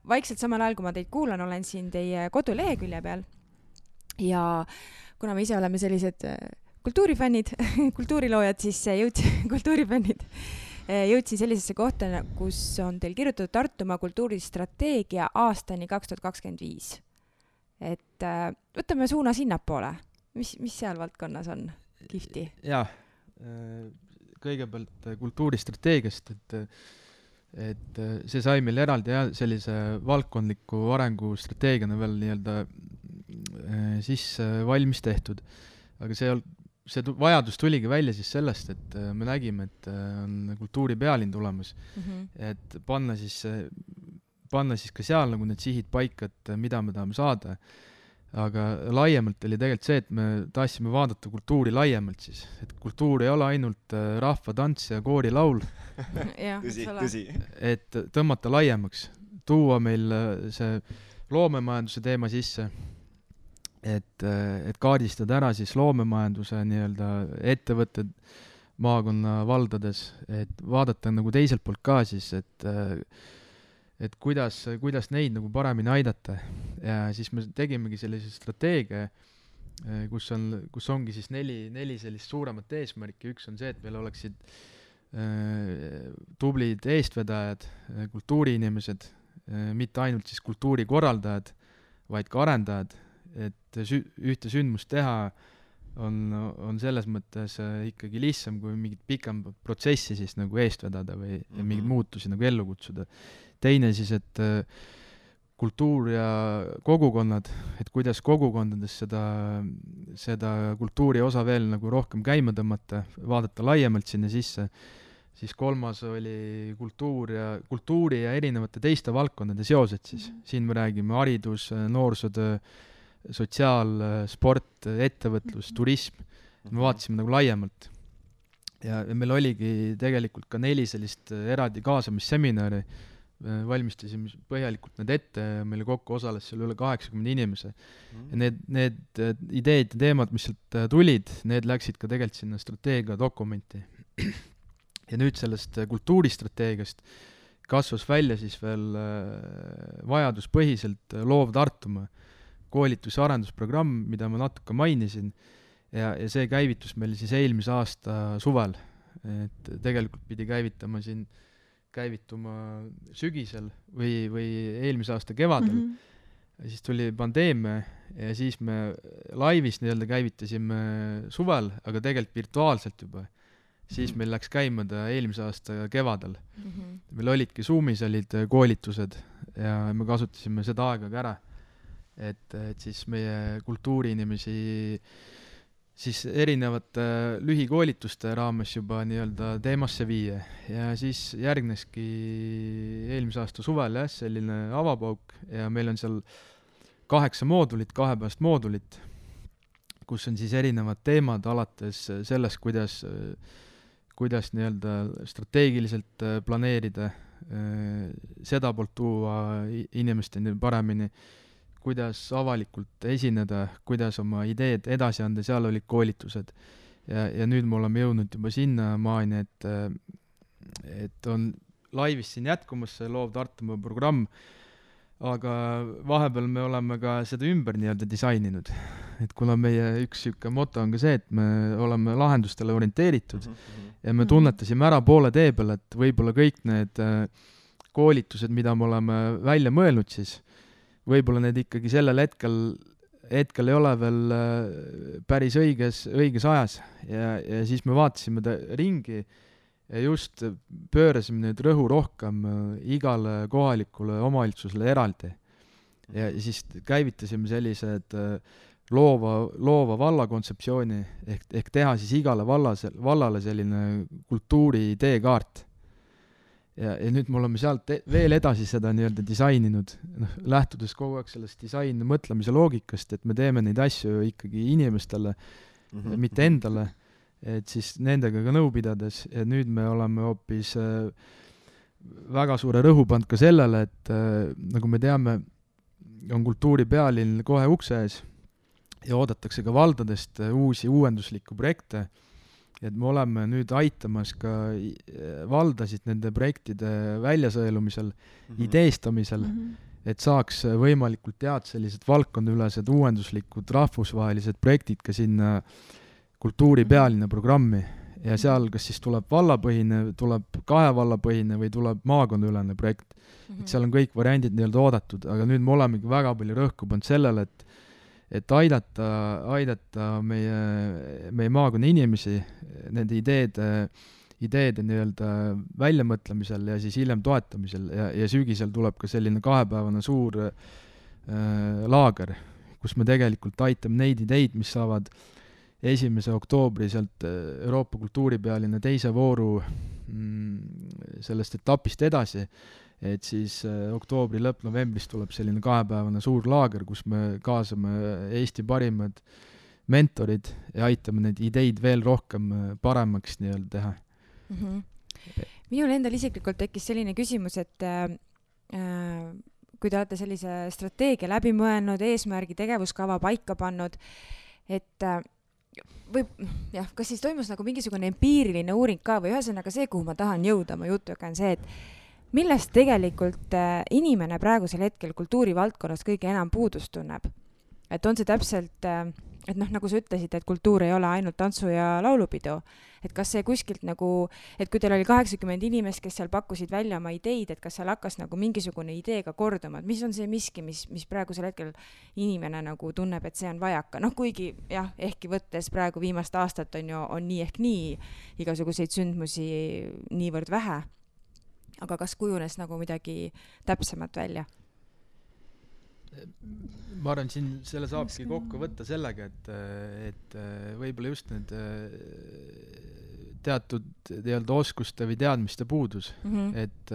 vaikselt samal ajal, kui ma teid kuulan, olen siin teie kodulehekülje peal ja kuna me ise oleme sellised kultuurifännid, kultuuriloojad, siis kultuurifännid, jõudsin sellisesse kohta, kus on teil kirjutatud Tartumaa kultuuristrateegia aastani 2025. Et võtame suuna sinnapoole. Mis seal valdkonnas on kihvti? Jaa, kõigepealt kultuuristrateegiast, et see sai meil eraldi sellise valdkondliku arengustrateegiana veel nii-öelda siis valmis tehtud. Aga see vajadus tuligi välja siis sellest, et me nägime, et on kultuuripealinn tulemas, et panna siis ka seal nagu need sihid paika, et mida me tahame saada. Aga laiemalt oli tegelikult see, et me tahtsime vaadata kultuuri laiemalt siis, et kultuur ei ole ainult rahvatants ja koorilaul, tõsi. Et tõmmata laiemaks, tuua meil see loomemajanduse teema sisse, et kaardistada ära siis loomemajanduse nii-öelda ettevõtted maakonna valdades, et vaadata nagu teiselt poolt ka siis, et kuidas neid nagu paremini aidata ja siis me tegimegi sellise strateegia, kus ongi siis neli sellist suuremat eesmärki. Üks on see, et meil oleksid tublid eestvedajad, kultuuriinimesed, mitte ainult siis kultuurikorraldajad, vaid ka arendajad, et ühte sündmust teha on selles mõttes ikkagi lihtsam kui mingit pikem protsessi siis nagu eest vedada või mingeid muutusi nagu ellu kutsuda. Teine siis, et kultuur ja kogukonnad, et kuidas kogukondades seda kultuuri osa veel nagu rohkem käima tõmmata, vaadata laiemalt sinna sisse. Siis kolmas oli kultuuri ja erinevate teiste valdkondade seosed siis. Siin me räägime haridus, noorsootöö, sotsiaal, sport, ettevõtlus, turism. Me vaatasime nagu laiemalt. Ja meil oligi tegelikult ka 4 sellist eraldi kaasamisseminari. Valmistasime põhjalikult need ette ja meile kokku osales seal üle 80 inimese. Ja need ideed ja teemad, mis sealt tulid, need läksid ka tegelikult sinna strateegia dokumenti. Ja nüüd sellest kultuuristrateegiast kasvas välja siis veel vajaduspõhiselt loov Tartumaa koolitus- ja arendusprogramm, mida ma natuke mainisin, ja see käivitus meil siis eelmise aasta suvel. Et tegelikult pidi käivituma sügisel või eelmise aasta kevadel. Ja siis tuli pandeemia ja siis me laivis nii-öelda käivitasime suvel, aga tegelikult virtuaalselt juba. Siis meil läks käima ta eelmise aasta kevadel. Meil olidki Zoomis olid koolitused ja me kasutasime seda aega ka ära. Et siis meie kultuuriinimesi siis erinevate lühikoolituste raames juba nii-öelda teemasse viia. Ja siis järgneski eelmise aasta suvel selline avapauk ja meil on seal 8 moodulit, 2-päevast moodulit, kus on siis erinevad teemad alates sellest, kuidas nii-öelda strateegiliselt planeerida, seda poolt tuua inimesteni paremini, kuidas avalikult esineda, kuidas oma ideed edasi anda, seal olid koolitused. Ja nüüd me oleme jõudnud juba sinna maani, et on laivis siin jätkumas see loov Tartumaa programm, aga vahepeal me oleme ka seda ümber nii-öelda disaininud. Et kuna meie üks moto on ka see, et me oleme lahendustele orienteeritud ja me tunnetasime ära poole tee peal, et võib-olla kõik need koolitused, mida me oleme välja mõelnud siis, võib-olla need ikkagi sellel hetkel hetkel ei ole veel päris õiges ajas ja siis me vaatasime ringi ja just pöörasime nüüd rõhu rohkem igale kohalikule omavalitsusele eraldi. Ja siis käivitasime sellised loova valla kontseptsiooni ehk teha siis igale vallale selline kultuuri teekaart. Ja nüüd me oleme sealt veel edasi seda nii-öelda disaininud, lähtudes kogu aeg sellest disaini mõtlemise loogikast, et me teeme neid asju ikkagi inimestele, mitte endale, et siis nendega ka nõu pidades, ja nüüd me oleme hoopis väga suure rõhu pannud ka sellele, et nagu me teame, on kultuuripealinn kohe ukse ees ja oodatakse ka valdadest uusi uuenduslikku projekte, et me oleme nüüd aitamas ka valdasid nende projektide väljasõelumisel, ideestamisel, et saaks võimalikult head sellised valdkondaülesed uuenduslikud rahvusvahelised projektid ka sinna kultuuripealinna programmi ja seal kas siis tuleb vallapõhine, tuleb 2 vallapõhine või tuleb maakondaülene projekt. Et seal on kõik variandid nii-öelda oodatud, aga nüüd me olemegi väga palju rõhku pannud sellele, et aidata meie maakonna inimesi nende ideede nii-öelda väljamõtlemisel ja siis hiljem toetamisel ja sügisel tuleb ka selline 2-päevane suur laager, kus me tegelikult aitame neid ideid, mis saavad 1. oktoobri sealt Euroopa kultuuripealinna 2. vooru sellest etapist edasi, et siis oktoobri lõpp-novembris tuleb selline 2-päevane suur laager, kus me kaasame Eesti parimad mentorid ja aitame neid ideid veel rohkem paremaks nii-öelda teha. Minul endal isiklikult tekkis selline küsimus, et kui te olete sellise strateegia läbi mõelnud, eesmärgi tegevuskava paika pannud, et kas siis toimus nagu mingisugune empiiriline uuring ka või ühesõnaga see, kuhu ma tahan jõuda oma jutuga, on see, et millest tegelikult inimene praegusel hetkel kultuurivaldkonnas kõige enam puudust tunneb? Et on see täpselt, et nagu sa ütlesid, et kultuur ei ole ainult tantsu ja laulupidu, et kas see kuskilt nagu, et kui teil oli 80 inimest, kes seal pakkusid välja oma ideid, et kas seal hakkas nagu mingisugune ideega korduma, et mis on see miski, mis praegusel hetkel inimene nagu tunneb, et see on vajaka, kuigi jah, ehkki võttes praegu viimast aastat on nii ehk nii igasuguseid sündmusi niivõrd vähe, aga kas kujunes nagu midagi täpsemat välja? Ma arvan, siin selle saabki kokku võtta sellega, et võib-olla just need teatud nii-öelda oskuste või teadmiste puudus, et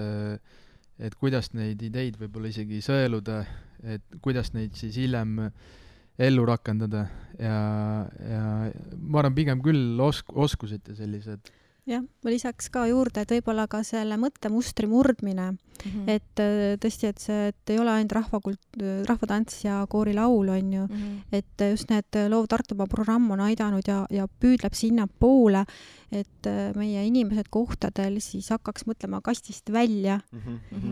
kuidas neid ideid võib-olla isegi sõeluda, et kuidas neid siis hiljem ellu rakendada ja ma arvan pigem küll oskused ja sellised. Jah, ma lisaks ka juurde, et võib-olla ka selle mõttemustri murdmine, et tõesti, et ei ole ainult rahvatants ja koorilaul on ju, et just need Loov Tartumaa programm on aidanud ja püüdleb sinna poole, et meie inimesed kohtadel siis hakkaks mõtlema kastist välja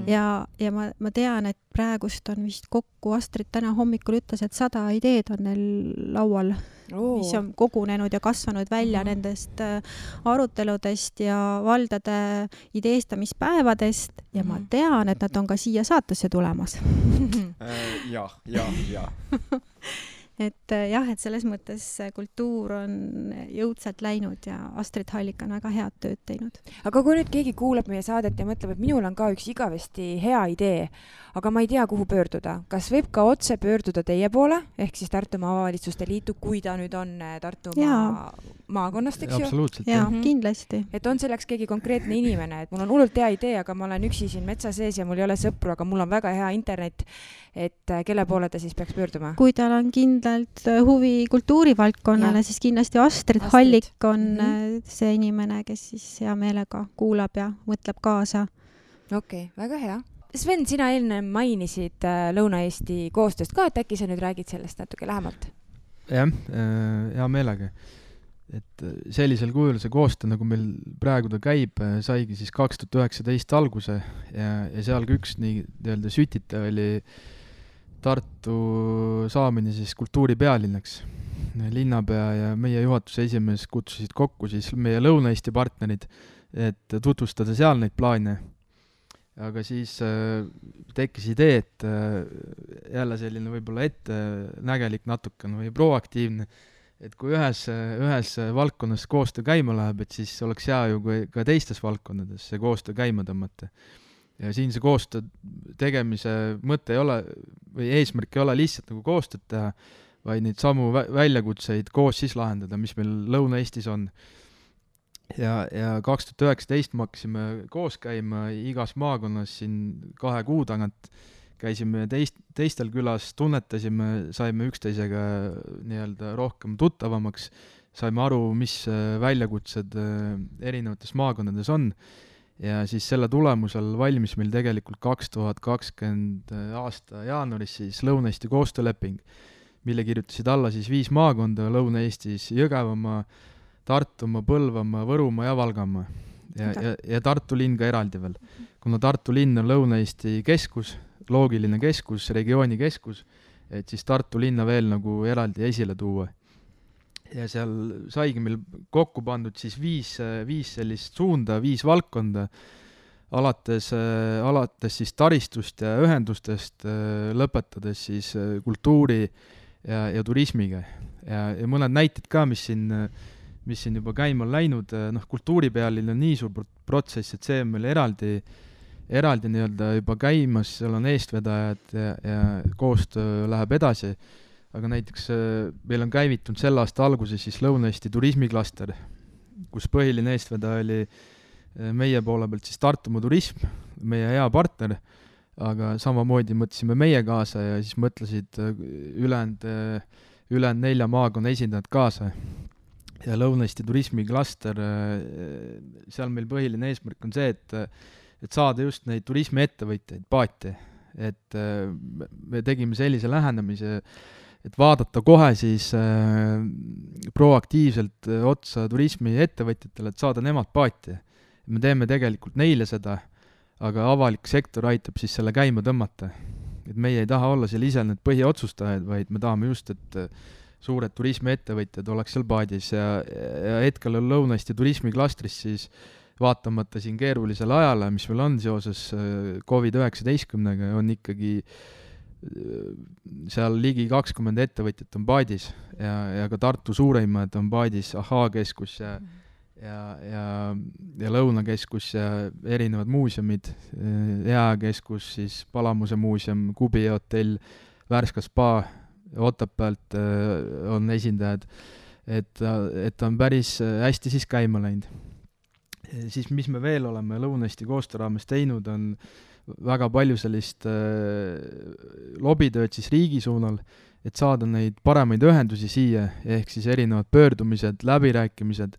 ja ma tean, et praegust on vist kokku, Astrid täna hommikul ütles, et 100 ideed on neil laual, mis on kogunenud ja kasvanud välja nendest aruteludest ja valdade ideestamispäevadest ja ma tean, et nad on ka siia saatesse tulemas. Ja. Et jah, et selles mõttes kultuur on jõudsalt läinud ja Astrid Hallik on väga head tööd teinud. Aga kui nüüd keegi kuuleb meie saadet ja mõtleb, et minul on ka üks igavesti hea idee, aga ma ei tea, kuhu pöörduda. Kas võib ka otse pöörduda teie poole, ehk siis Tartumaa Omavalitsuste Liitu, kui ta nüüd on Tartumaa maakonnast, eks ju? Absoluutselt, jah. Kindlasti. Et on selleks keegi konkreetne inimene, et mul on hullult hea idee, aga ma olen üksi siin metsa sees ja mul ei ole sõpru, aga mul on väga hea internet, et kelle poole ta siis peaks pöörduma? Kui tal on kindlalt huvi kultuurivaldkonnale, siis kindlasti Astrid Hallik on see inimene, kes siis hea meelega kuulab ja mõtleb kaasa. Okei, väga hea. Sven, sina enne mainisid Lõuna-Eesti koostööst ka, et äkki sa nüüd räägid sellest natuke lähemalt? Jah, hea meelega. Et sellisel kujul see koostöö, nagu meil praegu ta käib, saigi siis 2019 alguse ja seal üks nii-öelda sütita oli Tartu saamine siis kultuuripealinnaks. Linnapea ja meie juhatuse esimees kutsusid kokku siis meie Lõuna-Eesti partnerid, et tutvustada seal neid plaane. aga siis tekkis idee, et jälle selline võib-olla ettenägelik natukene või proaktiivne, et kui ühes valdkonnas koostöö käima läheb, et siis oleks hea ju kui ka teistes valdkondades see koostöö käima tõmmata. Ja siin see koostöö tegemise mõte ei ole või eesmärk ei ole lihtsalt nagu koostööd teha, vaid neid samu väljakutseid koos siis lahendada, mis meil Lõuna-Eestis on. Ja 2019 me hakkasime koos käima igas maakonnas siin 2 kuu tagant, käisime teistel külas, tunnetasime, saime üksteisega nii-öelda rohkem tuttavamaks, saime aru, mis väljakutsed erinevates maakondades on. Ja siis selle tulemusel valmis meil tegelikult 2020 aasta jaanuaris siis Lõuna-Eesti koostööleping, mille kirjutasid alla siis 5 maakonda Lõuna-Eestis: Jõgevamaa, Tartumaa, Põlvamaa, Võrumaa ja Valgamaa. Ja Tartu linn ka eraldi veel. Kuna Tartu linn on Lõuna-Eesti keskus, loogiline keskus, regiooni keskus, et siis Tartu linna veel nagu eraldi esile tuua. Ja seal saigi meil kokku pandud siis 5 sellist suunda, 5 valdkonda, alates siis taristust ja ühendustest, lõpetades siis kultuuri ja turismiga. Ja mõned näited ka, mis siin juba käima on läinud, kultuuripealil on nii suur protsess, et see on meil eraldi nii-öelda juba käimas, seal on eestvedajad ja koostöö läheb edasi. Aga näiteks meil on käivitunud selle aasta alguses siis Lõuna-Eesti turismiklaster, kus põhiline eestvedaja oli meie poole pealt siis Tartumaa turism, meie hea partner, aga samamoodi mõtlesime meie kaasa ja siis mõtlesid ülejäänud 4 maakonna esindajad kaasa. Ja Lõuna-Eesti turismiklaster, seal meil põhiline eesmärk on see, et saada just neid turismiettevõtjaid paati. Et me tegime sellise lähenemise, et vaadata kohe siis proaktiivselt otsa turismiettevõtjatele, et saada nemad paati. Me teeme tegelikult neile seda, aga avalik sektor aitab siis selle käima tõmmata. Et meie ei taha olla seal ise need põhiotsustajad, vaid me tahame just, et suured turismiettevõtjad oleks seal paadis ja hetkel on Lõuna-Eesti turismiklastris siis vaatamata siin keerulisele ajale, mis meil on seoses COVID-19-ga, on ikkagi seal ligi 20 ettevõtjat on paadis ja ka Tartu suureimad on paadis, Ahhaa-keskus ja Lõunakeskus ja erinevad muuseumid, Jääkeskus, siis Palamuse muuseum, Kubi hotell, Värska spa, Otepäält on esindajad, et on päris hästi siis käima läinud. Siis mis me veel oleme Lõuna-Eesti koostöö raames teinud, on väga palju sellist lobitööd siis riigi suunal, et saada neid paremaid ühendusi siia, ehk siis erinevad pöördumised, läbirääkimised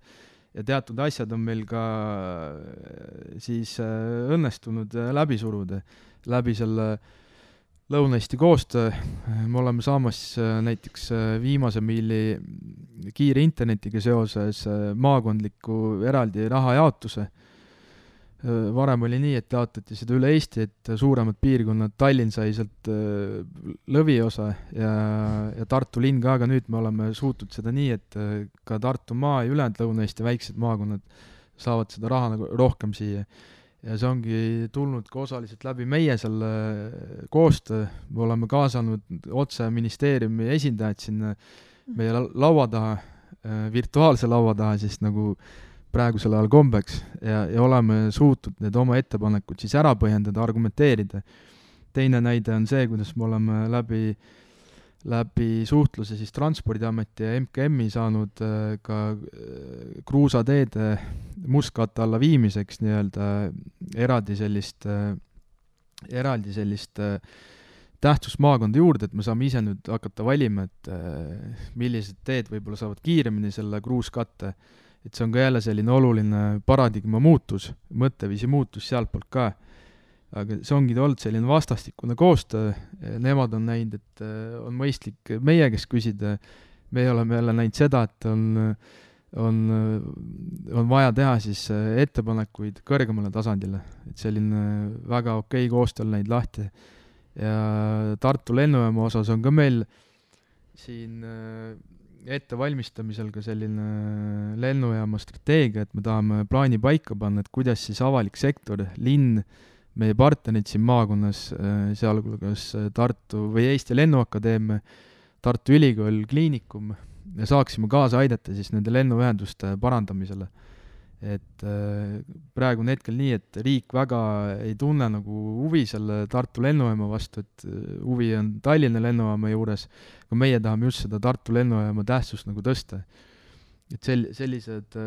ja teatud asjad on meil ka siis õnnestunud läbi suruda läbi selle Lõuna-Eesti koostöö. Me oleme saamas näiteks viimase miili kiire internetiga seoses maakondliku eraldi rahajaotuse. Varem oli nii, et jaotati seda üle Eesti, et suuremad piirkonnad, Tallinn sai sealt lõviosa ja Tartu linn ka, aga nüüd me oleme suutnud seda nii, et ka Tartumaa ja ülejäänud Lõuna-Eesti väiksed maakonnad saavad seda raha nagu rohkem siia. Ja see ongi tulnud ka osaliselt läbi meie selle koostöö. Me oleme kaasanud otse ministeeriumi esindajad sinna meie laua taha, virtuaalse laua taha, siis nagu praegusel ajal kombeks ja oleme suutnud need oma ettepanekud siis ära põhjendada, argumenteerida. Teine näide on see, kuidas me oleme läbi suhtluse siis Transpordiameti ja MKM-i saanud ka kruusateede mustkatte alla viimiseks nii-öelda eraldi sellist tähtsusmaakonda juurde, et me saame ise nüüd hakata valima, et millised teed võib-olla saavad kiiremini selle kruuskatte. Et see on ka jälle selline oluline paradigma muutus, mõtteviisi muutus sealtpoolt ka. Aga see ongi olnud selline vastastikune koostöö. Nemad on näinud, et on mõistlik meie käest küsida. Me oleme jälle näinud seda, et on vaja teha siis ettepanekuid kõrgemale tasandile. Et selline väga okei koostöö on näinud lahti. Ja Tartu lennujaama osas on ka meil siin ettevalmistamisel ka selline lennujaama strateegia, et me tahame plaani paika panna, et kuidas siis avalik sektor, linn, meie partnerid siin maakonnas, sealhulgas Tartu või Eesti Lennuakadeemia, Tartu Ülikool, Kliinikum, ja saaksime kaasa aidata siis nende lennuühenduste parandamisele. Et praegu on hetkel nii, et riik väga ei tunne nagu huvi selle Tartu lennujaama vastu, et huvi on Tallinna lennujaama juures, aga meie tahame just seda Tartu lennujaama tähtsust nagu tõsta. Et sellised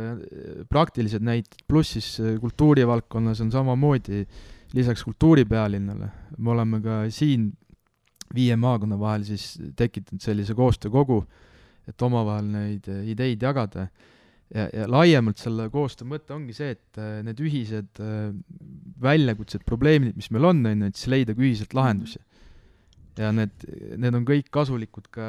praktilised näited, pluss siis kultuurivaldkonnas on samamoodi lisaks kultuuripealinnale. Me oleme ka siin 5 maakonna vahel siis tekitanud sellise koostöökogu, et omavahel neid ideid jagada. Ja laiemalt selle koostöö mõte ongi see, et need ühised väljakutsed, probleemid, mis meil on, et siis leida ühiselt lahendusi. Ja need on kõik kasulikud ka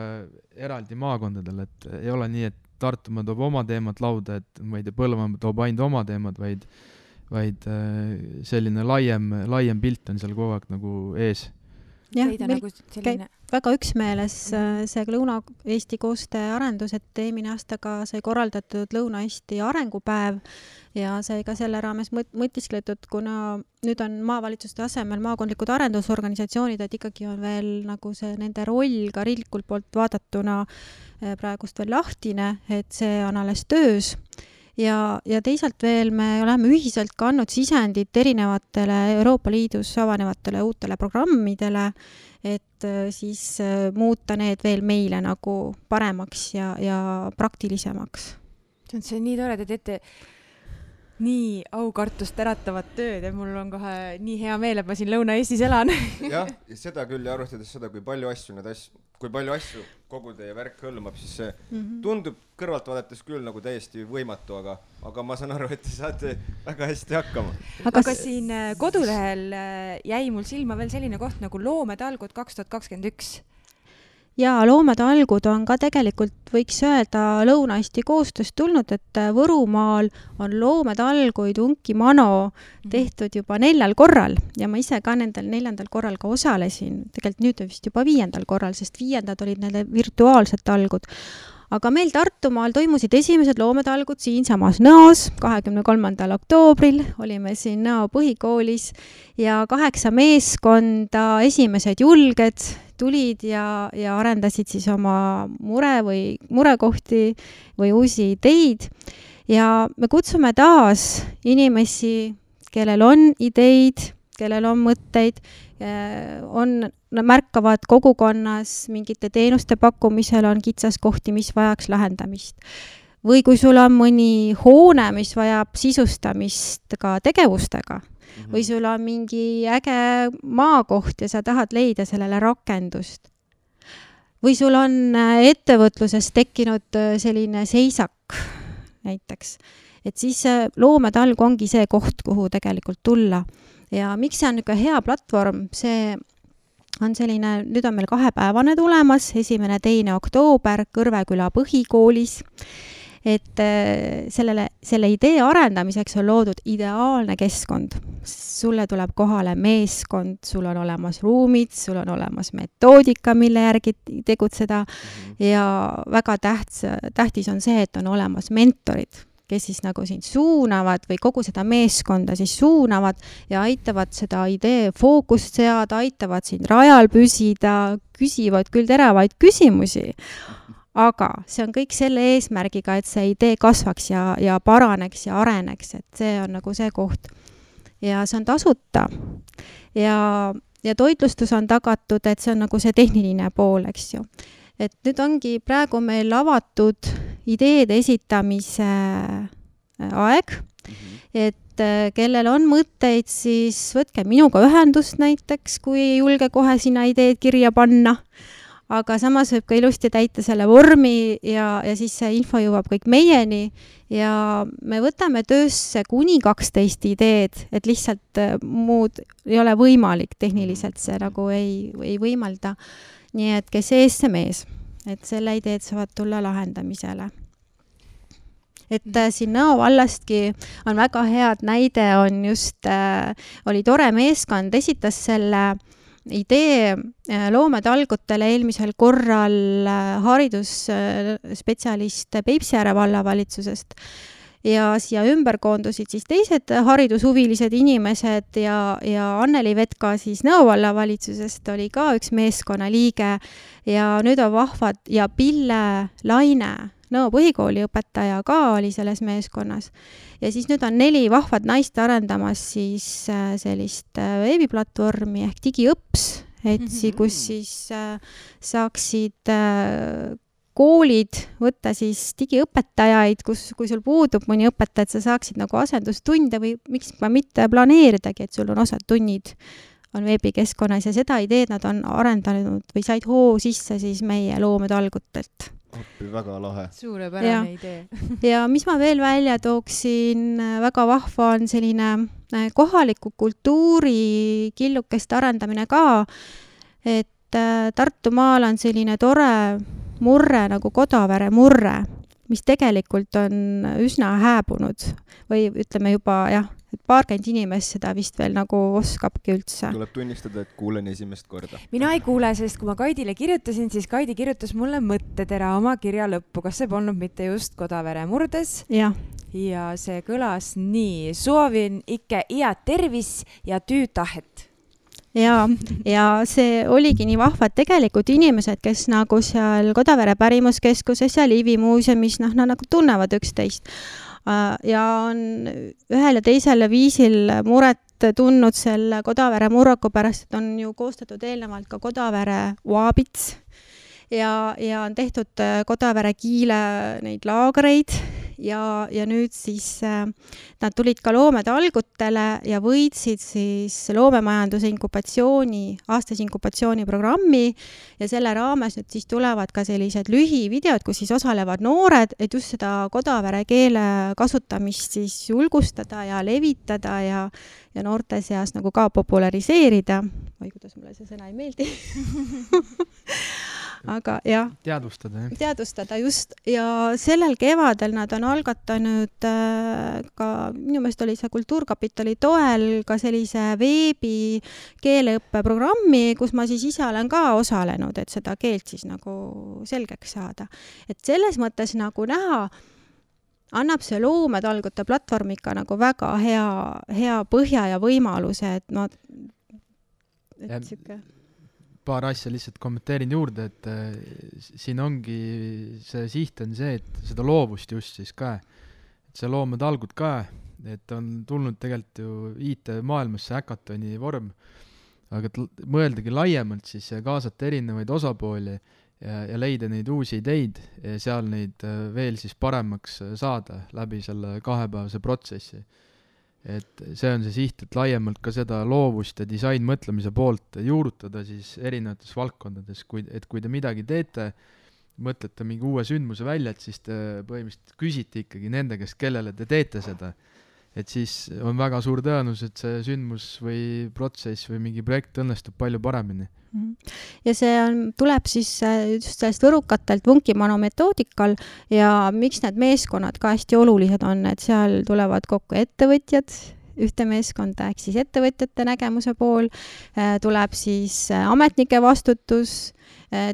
eraldi maakondadel, et ei ole nii, et Tartumaa toob oma teemad lauda, et ma ei tea, Põlvamaa toob ainult oma teemad, vaid selline laiem pilt on seal kogu aeg nagu ees. Jah, meil käib väga üksmeeles see Lõuna-Eesti koostööarendus, et eelmine aastaga sai korraldatud Lõuna-Eesti arengupäev ja sai ka selle raames mõtiskletud, kuna nüüd on maavalitsuste asemel maakondlikud arendusorganisatsioonid, et ikkagi on veel nagu see nende roll ka riiklikult poolt vaadatuna praegust veel lahtine, et see on alles töös. Ja teisalt veel me oleme ühiselt kandnud sisendit erinevatele Euroopa Liidus avanevatele uutele programmidele, et siis muuta need veel meile nagu paremaks ja praktilisemaks. See on nii tore, te teete nii aukartust äratavat tööd ja mul on kohe nii hea meel, et ma siin Lõuna-Eestis elan. Jah, seda küll ja arvestades seda, kui palju asju kogu teie värk hõlmab, siis see tundub kõrvalt vaadates küll nagu täiesti võimatu, aga ma saan aru, et te saate väga hästi hakkama. Aga siin kodulehel jäi mul silma veel selline koht nagu Loometalgud 2021. Ja Loometalgud on ka tegelikult, võiks öelda, Lõuna-Eesti koostööst tulnud, et Võrumaal on Loometalguid Unki Mano tehtud juba 4 korral ja ma ise ka nendel 4. korral ka osalesin. Tegelikult nüüd vist juba 5. korral, sest 5. olid need virtuaalsed talgud. Aga meil Tartumaal toimusid esimesed Loometalgud siinsamas Nõos 23. oktoobril. Olime siin Nõo põhikoolis ja 8 meeskonda, esimesed julged tulid ja arendasid siis oma murekohti või uusi ideid. Ja me kutsume taas inimesi, kellel on ideid, kellel on mõtteid, märkavad kogukonnas mingite teenuste pakkumisel on kitsaskohti, mis vajaks lahendamist. Või kui sul on mõni hoone, mis vajab sisustamist ka tegevustega, või sul on mingi äge maakoht ja sa tahad leida sellele rakendust. Või sul on ettevõtluses tekkinud selline seisak näiteks. Et siis Loometalg ongi see koht, kuhu tegelikult tulla. Ja miks see on niisugune hea platvorm? See on selline, nüüd on meil 2-päevane tulemas, 1.–2. oktoober Kõrveküla põhikoolis. Et selle idee arendamiseks on loodud ideaalne keskkond. Sulle tuleb kohale meeskond, sul on olemas ruumid, sul on olemas metoodika, mille järgi tegutseda ja väga tähtis on see, et on olemas mentorid, kes siis nagu sind suunavad või kogu seda meeskonda siis suunavad ja aitavad seda idee fookust seada, aitavad sind rajal püsida, küsivad küll teravaid küsimusi. Aga see on kõik selle eesmärgiga, et see idee kasvaks ja paraneks ja areneks, et see on nagu see koht. Ja see on tasuta ja toitlustus on tagatud, et see on nagu see tehniline pool, eks ju. Et nüüd ongi praegu meil avatud ideede esitamise aeg, et kellel on mõtteid, siis võtke minuga ühendust näiteks, kui ei julge kohe sinna ideed kirja panna. Aga samas võib ka ilusti täita selle vormi ja siis see info jõuab kõik meieni ja me võtame töösse kuni 12 ideed, et lihtsalt muud ei ole võimalik, tehniliselt see nagu ei võimalda. Nii et kes ees, see mees, et selle ideed saavad tulla lahendamisele. Et siin Nõo vallastki on väga head näide, on just, oli tore meeskond, esitas selle idee Loometalgutele eelmisel korral haridusspetsialist Peipsiääre vallavalitsusest ja siia ümber koondusid siis teised haridushuvilised inimesed ja Anneli Vetka siis Nõo vallavalitsusest oli ka üks meeskonna liige ja nüüd on vahvad ja Pille Laine, Nõo põhikooli õpetaja ka oli selles meeskonnas. Ja siis nüüd on 4 vahvad naist arendamas siis sellist veebiplatvormi ehk digiõps, kus siis saaksid koolid võtta siis digiõpetajaid, kui sul puudub mõni õpetaja, et sa saaksid nagu asendustunde või miks mitte planeeridagi, et sul on osad tunnid on veebikeskkonnas ja seda ideed nad on arendanud või said hoo sisse siis meie loometalgutelt. Väga lahe. Suurepärane idee. Ja mis ma veel välja tooksin, väga vahva on selline kohaliku kultuuri killukest arendamine ka, et Tartumaal on selline tore murre nagu Kodavere murre, mis tegelikult on üsna hääbunud või ütleme juba et paarkümmend inimest seda vist veel nagu oskabki üldse. Tuleb tunnistada, et kuulen esimest korda. Mina ei kuule, sest kui ma Kaidile kirjutasin, siis Kaidi kirjutas mulle mõttetera oma kirja lõppu. Kas see polnud mitte just Kodavere murdes? Ja see kõlas nii. Soovin ikke iät tervis ja tüütahet. Ja see oligi nii vahva, et tegelikult inimesed, kes nagu seal Kodavere pärimuskeskuses ja Liivi muuseumis, nad nagu tunnevad üksteist ja on ühel ja teisel viisil muret tundnud selle Kodavere murraku pärast, et on ju koostatud eelnevalt ka Kodavere Oabits ja on tehtud Kodavere Kiile neid laagreid ja nüüd siis nad tulid ka loometalgutele ja võitsid siis loomemajanduse aastase inkubatsiooniprogrammi ja selle raames nüüd siis tulevad ka sellised lühivideod, kus siis osalevad noored, et just seda Kodavere keele kasutamist siis julgustada ja levitada ja noorte seas nagu ka populariseerida. Või kuidas mulle see sõna ei meeldi. Aga jah. Teadvustada just. Ja sellel kevadel nad on algatanud ka, minu meelest oli see Kultuurkapitali toel ka sellise veebi keeleõppeprogrammi, kus ma siis ise olen ka osalenud, et seda keelt siis nagu selgeks saada. Et selles mõttes nagu näha, annab see loometalgute platvorm ikka nagu väga hea põhja ja võimaluse, et siuke... Paar asja lihtsalt kommenteerin juurde, et siin ongi see siht on see, et seda loovust just siis ka, et see loometalgud ka, et on tulnud tegelikult ju IT-maailmasse häkatoni vorm, aga mõeldagi laiemalt siis ja kaasata erinevaid osapooli ja leida neid uusi ideid ja seal neid veel siis paremaks saada läbi selle kahepäevase protsessi. Et see on see siht, et laiemalt ka seda loovust ja disainmõtlemise poolt juurutada siis erinevates valdkondades, et kui te midagi teete, mõtlete mingi uue sündmuse välja, et siis te põhimõtteliselt küsite ikkagi nende käest, kellele te teete seda. Et siis on väga suur tõenus, et see sündmus või protsess või mingi projekt õnnestub palju paremini. Ja see tuleb siis just sellest võrukatelt Vunkimano metoodikal ja miks need meeskonnad ka hästi olulised on, et seal tulevad kokku ettevõtjad, ühte meeskonda, ehk siis ettevõtjate nägemuse pool, tuleb siis ametnike vastutus,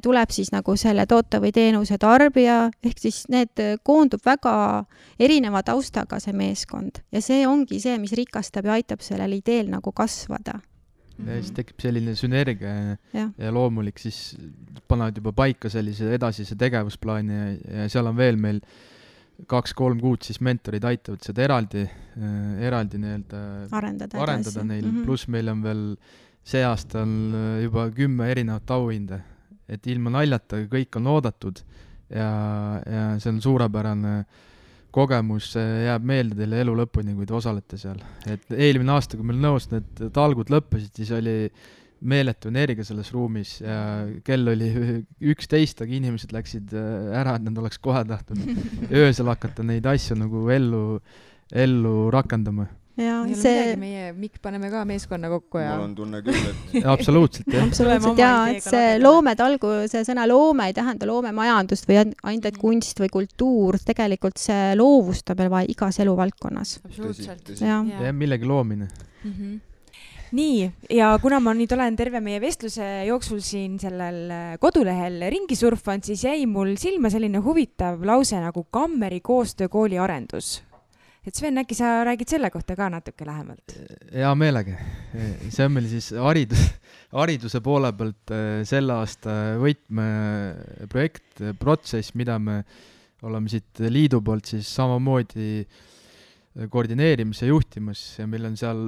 tuleb siis nagu selle toote või teenuse tarbija, ehk siis need koondub väga erineva taustaga see meeskond ja see ongi see, mis rikastab ja aitab sellel ideel nagu kasvada. Ja siis tekib selline sünergia ja loomulik siis panevad juba paika sellise edasise tegevusplaani ja seal on veel meil 2-3 kuud siis mentorid aitavad seda eraldi arendada neil, pluss meil on veel see aasta on juba 10 erinevat auhinde, et ilma naljata kõik on oodatud ja see on suurepärane kogemus, jääb meelde teile elu lõpuni, kui te osalete seal. Et eelmine aasta, kui meil Nõos need talgud lõppesid, siis oli meeletu energia selles ruumis ja kell oli 11, aga inimesed läksid ära, et nad oleks kohe tahtnud öösel hakata neid asju nagu ellu rakendama. Ja see... meie Mikk paneme ka meeskonna kokku ja... Mul on tunne küll, et... Absoluutselt, jah. Absoluutselt, jaa, et see loometalgu, see sõna loome ei tähenda loomemajandust või ainult kunst või kultuur, tegelikult see loovust on meil vaja igas eluvaldkonnas. Absoluutselt. Ja millegi loomine. Nii, ja kuna ma nüüd olen terve meie vestluse jooksul siin sellel kodulehel ringi surfanud, siis jäi mul silma selline huvitav lause nagu Kammeri koostöökooli arendus. et Sven, äkki sa räägid selle kohta ka natuke lähemalt? Hea meelega. See on meil siis hariduse poole pealt selle aasta võtmeprojekt, protsess, mida me oleme siit liidu poolt siis samamoodi koordineerimas ja juhtimas ja meil on seal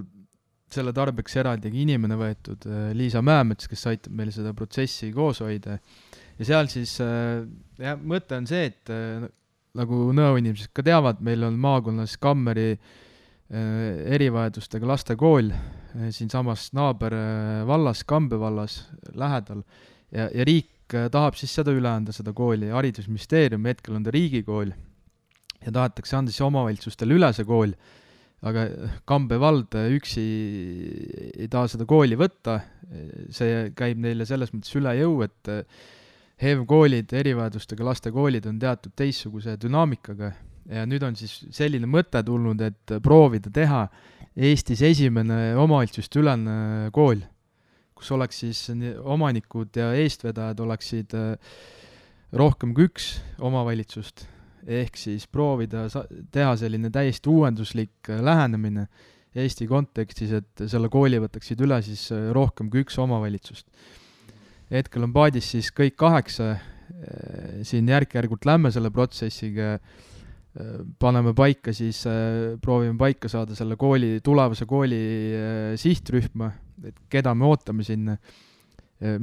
selle tarbeks eraldigi inimene võetud, Liisa Mäemets, kes aitab meil seda protsessi koos hoida. Ja seal siis mõte on see, et nagu nõuinimesed ka teavad, meil on maakonnas Kammeri erivajadustega lastekool siin samas naaber vallas, Kambe vallas lähedal ja riik tahab siis seda üle anda, seda kooli. Haridusministeerium hetkel on ta riigikool ja tahetakse anda siis omavalitsustele üle see kool, aga Kambe vald üksi ei taha seda kooli võtta. See käib neile selles mõttes üle jõu, et HEV-koolid, erivajadustega lastekoolid on teatud teistsuguse dünaamikaga ja nüüd on siis selline mõte tulnud, et proovida teha Eestis esimene omavalitsuste ülene kool, kus oleks siis omanikud ja eestvedajad oleksid rohkem kui üks omavalitsust, ehk siis proovida teha selline täiesti uuenduslik lähenemine Eesti kontekstis, et selle kooli võtaksid üle siis rohkem kui üks omavalitsust. Hetkel on paadis siis kõik 8, siin järk-järgult lämme selle protsessiga, paneme paika siis, proovime paika saada selle kooli, tulevase kooli sihtrühma, et keda me ootame sinna,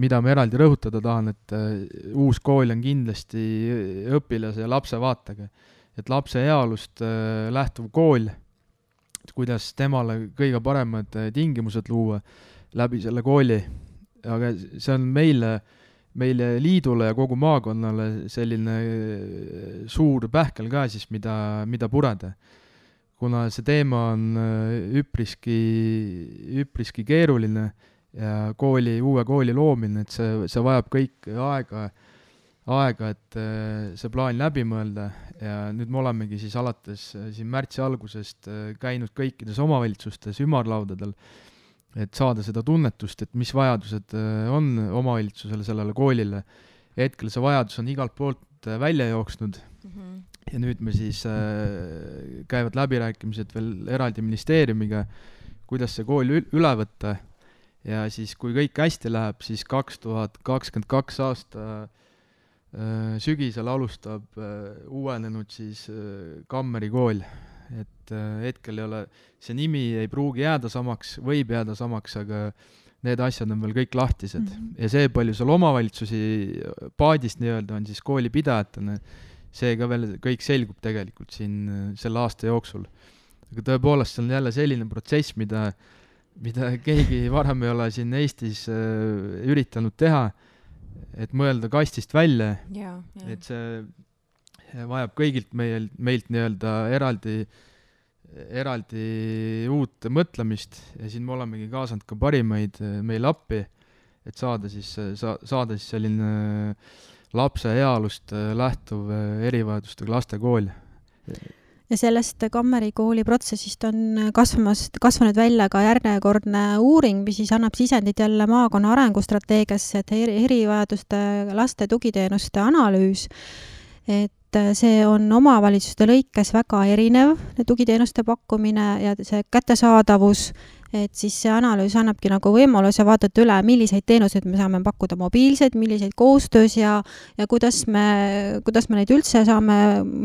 mida me eraldi rõhutada tahan, et uus kool on kindlasti õpilase ja lapse vaatega, et lapse heaolust lähtuv kool, kuidas temale kõige paremad tingimused luua läbi selle kooli. Aga see on meile liidule ja kogu maakonnale selline suur pähkel ka siis, mida pureda. Kuna see teema on üpriski keeruline ja uue kooli loomine, et see vajab kõik aega, et see plaan läbi mõelda ja nüüd me olemegi siis alates siin märtsi algusest käinud kõikides omavalitsustes ümarlaudadel, et saada seda tunnetust, et mis vajadused on omavalitsusele sellele koolile. Hetkel see vajadus on igalt poolt välja jooksnud ja nüüd me siis käivad läbirääkimised veel eraldi ministeeriumiga, kuidas see kool üle võtta ja siis kui kõik hästi läheb, siis 2022 aasta sügisel alustab uuenenud siis Kammeri kool. Et hetkel ei ole, see nimi ei pruugi jääda samaks, võib jääda samaks, aga need asjad on veel kõik lahtised. Ja see, palju seal omavalitsusi paadist nii-öelda on siis koolipidajatena, see ka veel kõik selgub tegelikult siin selle aasta jooksul. Aga tõepoolest see on jälle selline protsess, mida keegi varem ei ole siin Eestis üritanud teha, et mõelda kastist välja, et see vajab kõigilt meilt nii-öelda eraldi uut mõtlemist ja siin me olemegi kaasanud ka parimaid meil appi, et saada siis selline lapse heaolust lähtuv erivajadustega lastekool. Ja sellest Kammeri kooli protsessist on kasvanud välja ka järjekordne uuring, mis siis annab sisendit jälle maakonna arengustrateegiasse, et erivajaduste laste tugiteenuste analüüs, et see on omavalitsuste lõikes väga erinev, tugiteenuste pakkumine ja see kättesaadavus, et siis see analüüs annabki nagu võimaluse vaadata üle, milliseid teenuseid me saame pakkuda mobiilseid, milliseid koostöös ja kuidas me neid üldse saame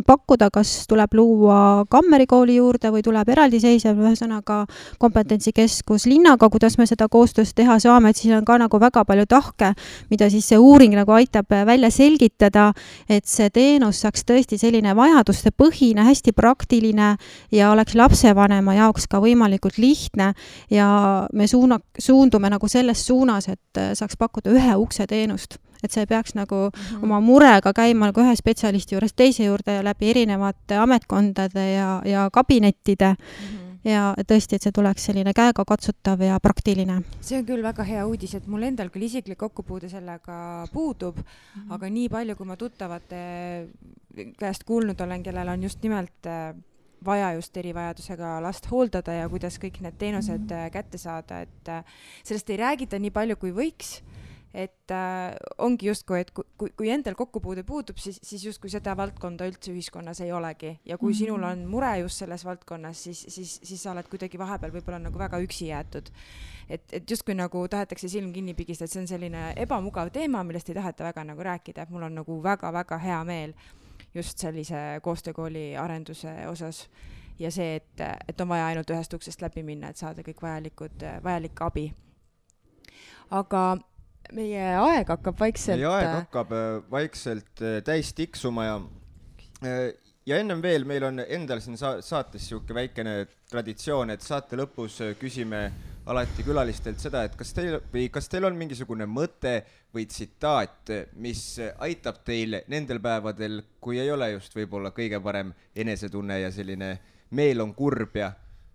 pakkuda, kas tuleb luua Kammeri kooli juurde või tuleb eraldiseisev ühesõnaga kompetentsikeskus linnaga, kuidas me seda koostöös teha saame, et siis on ka nagu väga palju tahke, mida siis see uuring nagu aitab välja selgitada, et see teenus saaks tõesti selline vajaduste põhine, hästi praktiline ja oleks lapsevanema jaoks ka võimalikult lihtne ja me suundume nagu selles suunas, et saaks pakkuda ühe ukse teenust, et see peaks nagu oma murega käima nagu ühe spetsialisti juures teise juurde ja läbi erinevate ametkondade ja kabinettide ja tõesti, et see tuleks selline käega katsutav ja praktiline. See on küll väga hea uudis, et mul endal küll isiklik kokkupuude sellega puudub, aga nii palju, kui ma tuttavate käest kuulnud olen, kellel on just nimelt vaja just erivajadusega last hooldada ja kuidas kõik need teenused kätte saada, et sellest ei räägita nii palju, kui võiks et ongi justkui, et kui endal kokkupuude puudub, siis justkui seda valdkonda üldse ühiskonnas ei olegi. Ja kui sinul on mure just selles valdkonnas, siis sa oled kuidagi vahepeal võib-olla nagu väga üksi jäetud. Et justkui nagu tahetakse silm kinni pigistada, et see on selline ebamugav teema, millest ei taheta väga nagu rääkida. Mul on nagu väga-väga hea meel just sellise koostöökooli arenduse osas. Ja see, et on vaja ainult ühest uksest läbi minna, et saada kõik vajalik abi. Aga meie aeg hakkab vaikselt täis tiksuma ja ennem veel meil on endal siin saates siuke väikene traditsioon, et saate lõpus küsime alati külalistelt seda, et kas teil on mingisugune mõte või tsitaat, mis aitab teil nendel päevadel, kui ei ole just võib-olla kõige parem enesetunne ja selline meel on kurb ja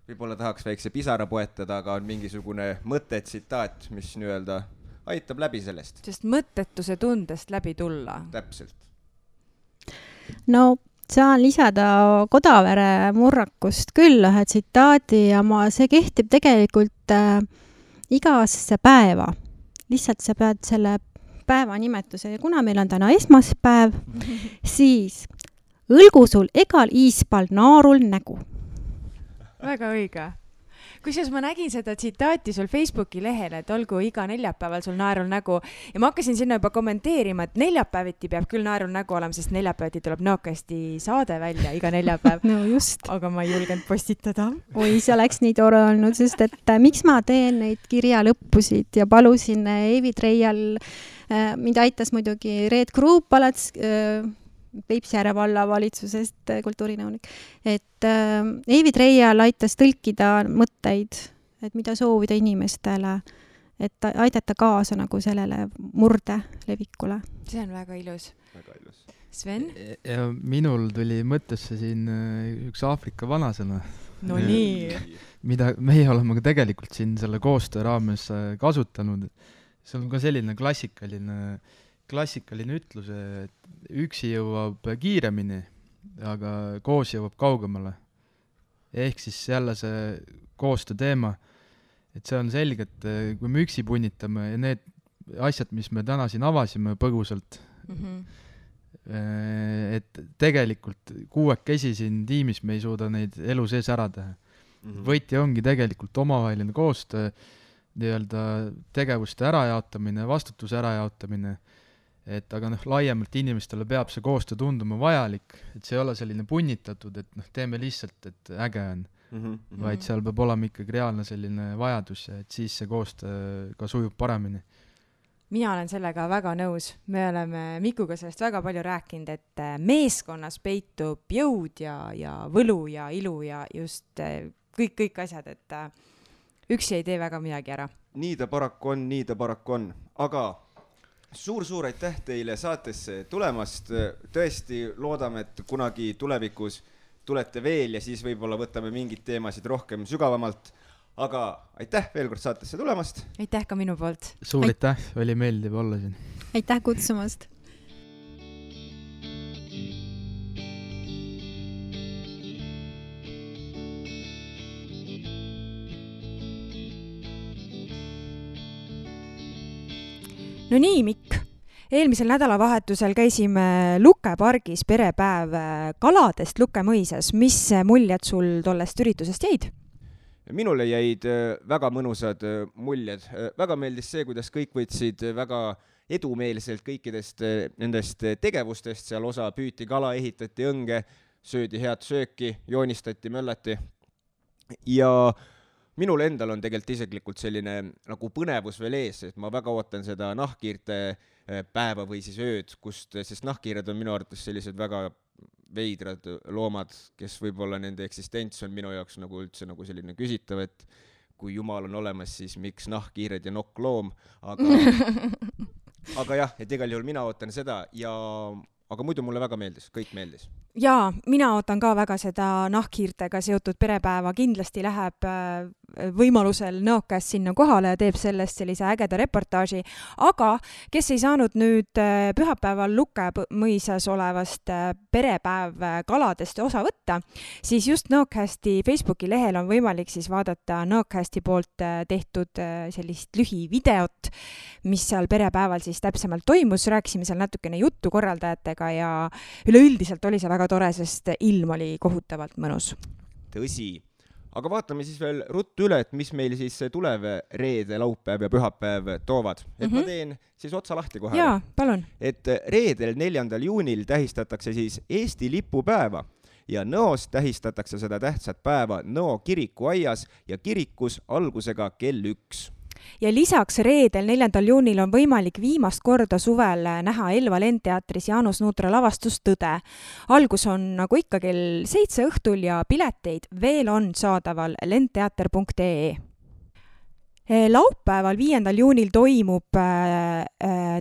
võib-olla tahaks väikse pisara poetada, aga on mingisugune mõte, tsitaat, mis nii-öelda aitab läbi sellest. Sest mõttetuse tundest läbi tulla. Täpselt. No saan lisada Kodavere murrakust küll ühe tsitaadi ja see kehtib tegelikult igasse päeva. Lihtsalt sa pead selle päeva nimetuse ja kuna meil on täna esmaspäev, siis õlgu sul egal iispal naarul nägu. Väga õige. Kusjuures ma nägin seda tsitaati sul Facebooki lehel, et olgu iga neljapäeval sul naerul nägu ja ma hakkasin sinna juba kommenteerima, et neljapäeviti peab küll naerul nägu olema, sest neljapäeviti tuleb Nõokasti saade välja iga neljapäev. No just. Aga ma ei julgenud postitada. Oi, see oleks nii tore olnud, sest et miks ma teen neid kirja lõppusid ja palusin Eevi Treial, mind aitas muidugi Reet Kruup alats Peipsiääre valla valitsusest kultuurinõunik, et Eevi Treial aitas tõlkida mõtteid, et mida soovida inimestele, et aidata kaasa nagu sellele murde levikule. See on väga ilus. Väga ilus. Sven? Ja minul tuli mõttesse siin üks Aafrika vanasõna. No nii. Mida meie oleme ka tegelikult siin selle koostöö raames kasutanud. See on ka selline klassikaline ütlus, et üksi jõuab kiiremini, aga koos jõuab kaugemale. Ehk siis jälle see koostöö teema, et see on selge, et kui me üksi punnitame ja need asjad, mis me täna siin avasime põgusalt, et tegelikult kuuekesi siin tiimis me ei suuda neid elu sees ära teha. Võti ongi tegelikult omavaheline koostöö, nii-öelda tegevuste ärajaotamine, vastutuse ärajaotamine, et aga laiemalt inimestele peab see koostöö tunduma vajalik, et see ei ole selline punnitatud, et teeme lihtsalt, et äge on, vaid seal peab olema ikkagi reaalne selline vajadus, et siis see koostöö ka sujub paremini. Mina olen sellega väga nõus. Me oleme Mikuga sellest väga palju rääkinud, et meeskonnas peitub jõud ja võlu ja ilu ja just kõik asjad, et üksi ei tee väga midagi ära. Nii ta paraku on, aga suur aitäh teile saatesse tulemast. Tõesti loodame, et kunagi tulevikus tulete veel ja siis võib-olla võtame mingid teemasid rohkem sügavamalt. Aga aitäh veel kord saatesse tulemast. Aitäh ka minu poolt. Suur aitäh, oli meeldiv olla siin. Aitäh kutsumast. No nii, Mikk. Eelmisel nädalavahetusel käisime Luke pargis perepäev kaladest Luke mõisas. Mis muljed sul tollest üritusest jäid? Minule jäid väga mõnusad muljed. Väga meeldis see, kuidas kõik võtsid väga edumeelselt kõikidest nendest tegevustest. Seal osa püüti kala, ehitati õnge, söödi head sööki, joonistati, möllati. Ja minul endal on tegelikult isiklikult selline nagu põnevus veel ees, et ma väga ootan seda nahkhiirte päeva või siis ööd, sest nahkhiired on minu arvates sellised väga veidrad loomad, kes võib-olla nende eksistents on minu jaoks nagu üldse nagu selline küsitav, et kui jumal on olemas, siis miks nahkhiired ja nokkloom, aga jah, et igal juhul mina ootan seda aga muidu mulle väga meeldis, kõik meeldis. Jaa, mina ootan ka väga seda nahkhiirtega seotud perepäeva, kindlasti läheb võimalusel Nõokäest sinna kohale ja teeb sellest sellise ägeda reportaaži, aga kes ei saanud nüüd pühapäeval Lukemõisas olevast perepäev kaladest osa võtta, siis just Nõokäesti Facebooki lehel on võimalik siis vaadata Nõokäesti poolt tehtud sellist lühivideot, mis seal perepäeval siis täpsemalt toimus, rääkisime seal natukene juttu korraldajatega ja üleüldiselt oli see väga tore, sest ilm oli kohutavalt mõnus. Tõsi. Aga vaatame siis veel ruttu üle, et mis meil siis tulev reede, laupäev ja pühapäev toovad. Et ma teen siis otsa lahti kohe. Jaa, palun. Et reedel 4. juunil tähistatakse siis Eesti lipupäeva ja Nõos tähistatakse seda tähtsat päeva Nõo kirikuaias ja kirikus algusega kell 1. Ja lisaks reedel 4. juunil on võimalik viimast korda suvel näha Elva Lendteatris Jaanus Nuutra lavastus Tõde. Algus on nagu ikka kell 7 õhtul ja pileteid veel on saadaval lendteater.ee. Laupäeval 5. juunil toimub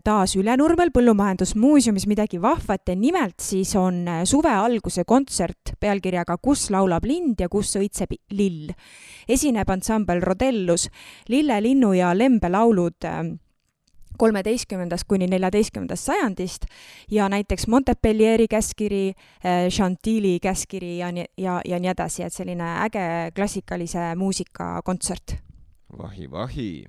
taas Ülenurmel Põllumajandusmuuseumis midagi vahvat ja nimelt siis on suve alguse kontsert pealkirjaga Kus laulab lind ja kus õitseb lill. Esineb ansambel Rodellus, Lille, linnu ja lembe laulud 13. kuni 14. sajandist ja näiteks Montpellieri käskiri, Chantilly käskiri ja nii edasi, et selline äge klassikalise muusika kontsert. Vahi.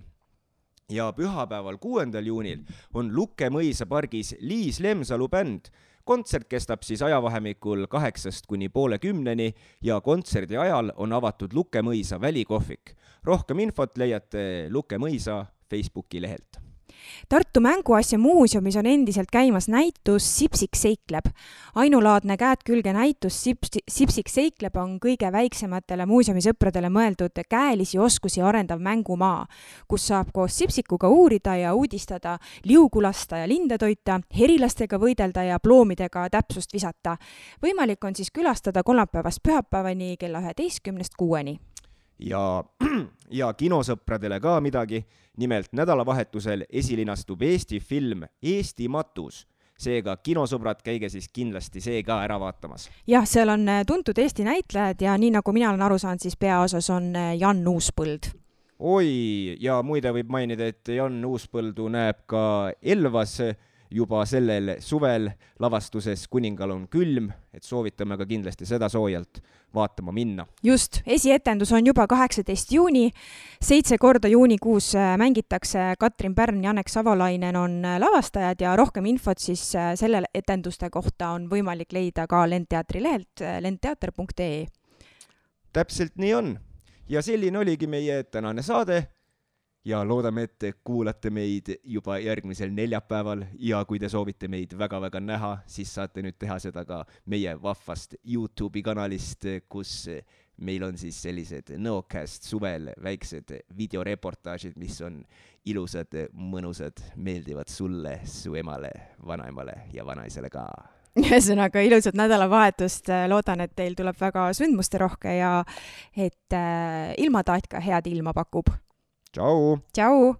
Ja pühapäeval 6. juunil on Lukemõisa pargis Liis Lemsalu bänd. Kontsert kestab siis ajavahemikul 8 kuni poole 10 ja kontserdi ajal on avatud Lukemõisa välikohvik. Rohkem infot leiate Lukemõisa Facebooki lehelt. Tartu Mänguasja muuseumis on endiselt käimas näitus Sipsik seikleb. Ainulaadne käed külge näitus Sipsik seikleb on kõige väiksematele muuseumisõpradele mõeldud käelisi oskusi arendav mängumaa, kus saab koos Sipsikuga uurida ja uudistada, liugu lasta ja linde toita, herilastega võidelda ja ploomidega täpsust visata. Võimalik on siis külastada kolmapäevast pühapäevani kella 11-st 6-ni. Ja kinosõpradele ka midagi. Nimelt nädalavahetusel esilinastub Eesti film Eesti matus. Seega kinosõbrad, käige siis kindlasti see ka ära vaatamas. Jah, seal on tuntud Eesti näitlejad ja nii nagu mina olen aru saanud, siis peaosas on Jan Uuspõld. Oi, ja muide võib mainida, et Jan Uuspõldu näeb ka Elvas juba sellel suvel lavastuses Kuningal on külm, et soovitame ka kindlasti seda soojalt vaatama minna. Just, esietendus on juba 18. juuni, 7 korda juunikuus mängitakse Katrin Pärn, Janek Savolainen on lavastajad ja rohkem infot siis selle etenduste kohta on võimalik leida ka Lendteatri lehelt lendteater.ee. Täpselt nii on. Ja selline oligi meie tänane saade. Ja loodame, et kuulate meid juba järgmisel neljapäeval ja kui te soovite meid väga-väga näha, siis saate nüüd teha seda ka meie vahvast YouTube'i kanalist, kus meil on siis sellised Nõokäest suvel väiksed videoreportaažid, mis on ilusad, mõnusad, meeldivad sulle, su emale, vanaemale ja vanaisele ka. Ühesõnaga ilusat nädalavahetust, loodan, et teil tuleb väga sündmuste rohke ja et ilmataat ka head ilma pakub. Ciao! Ciao!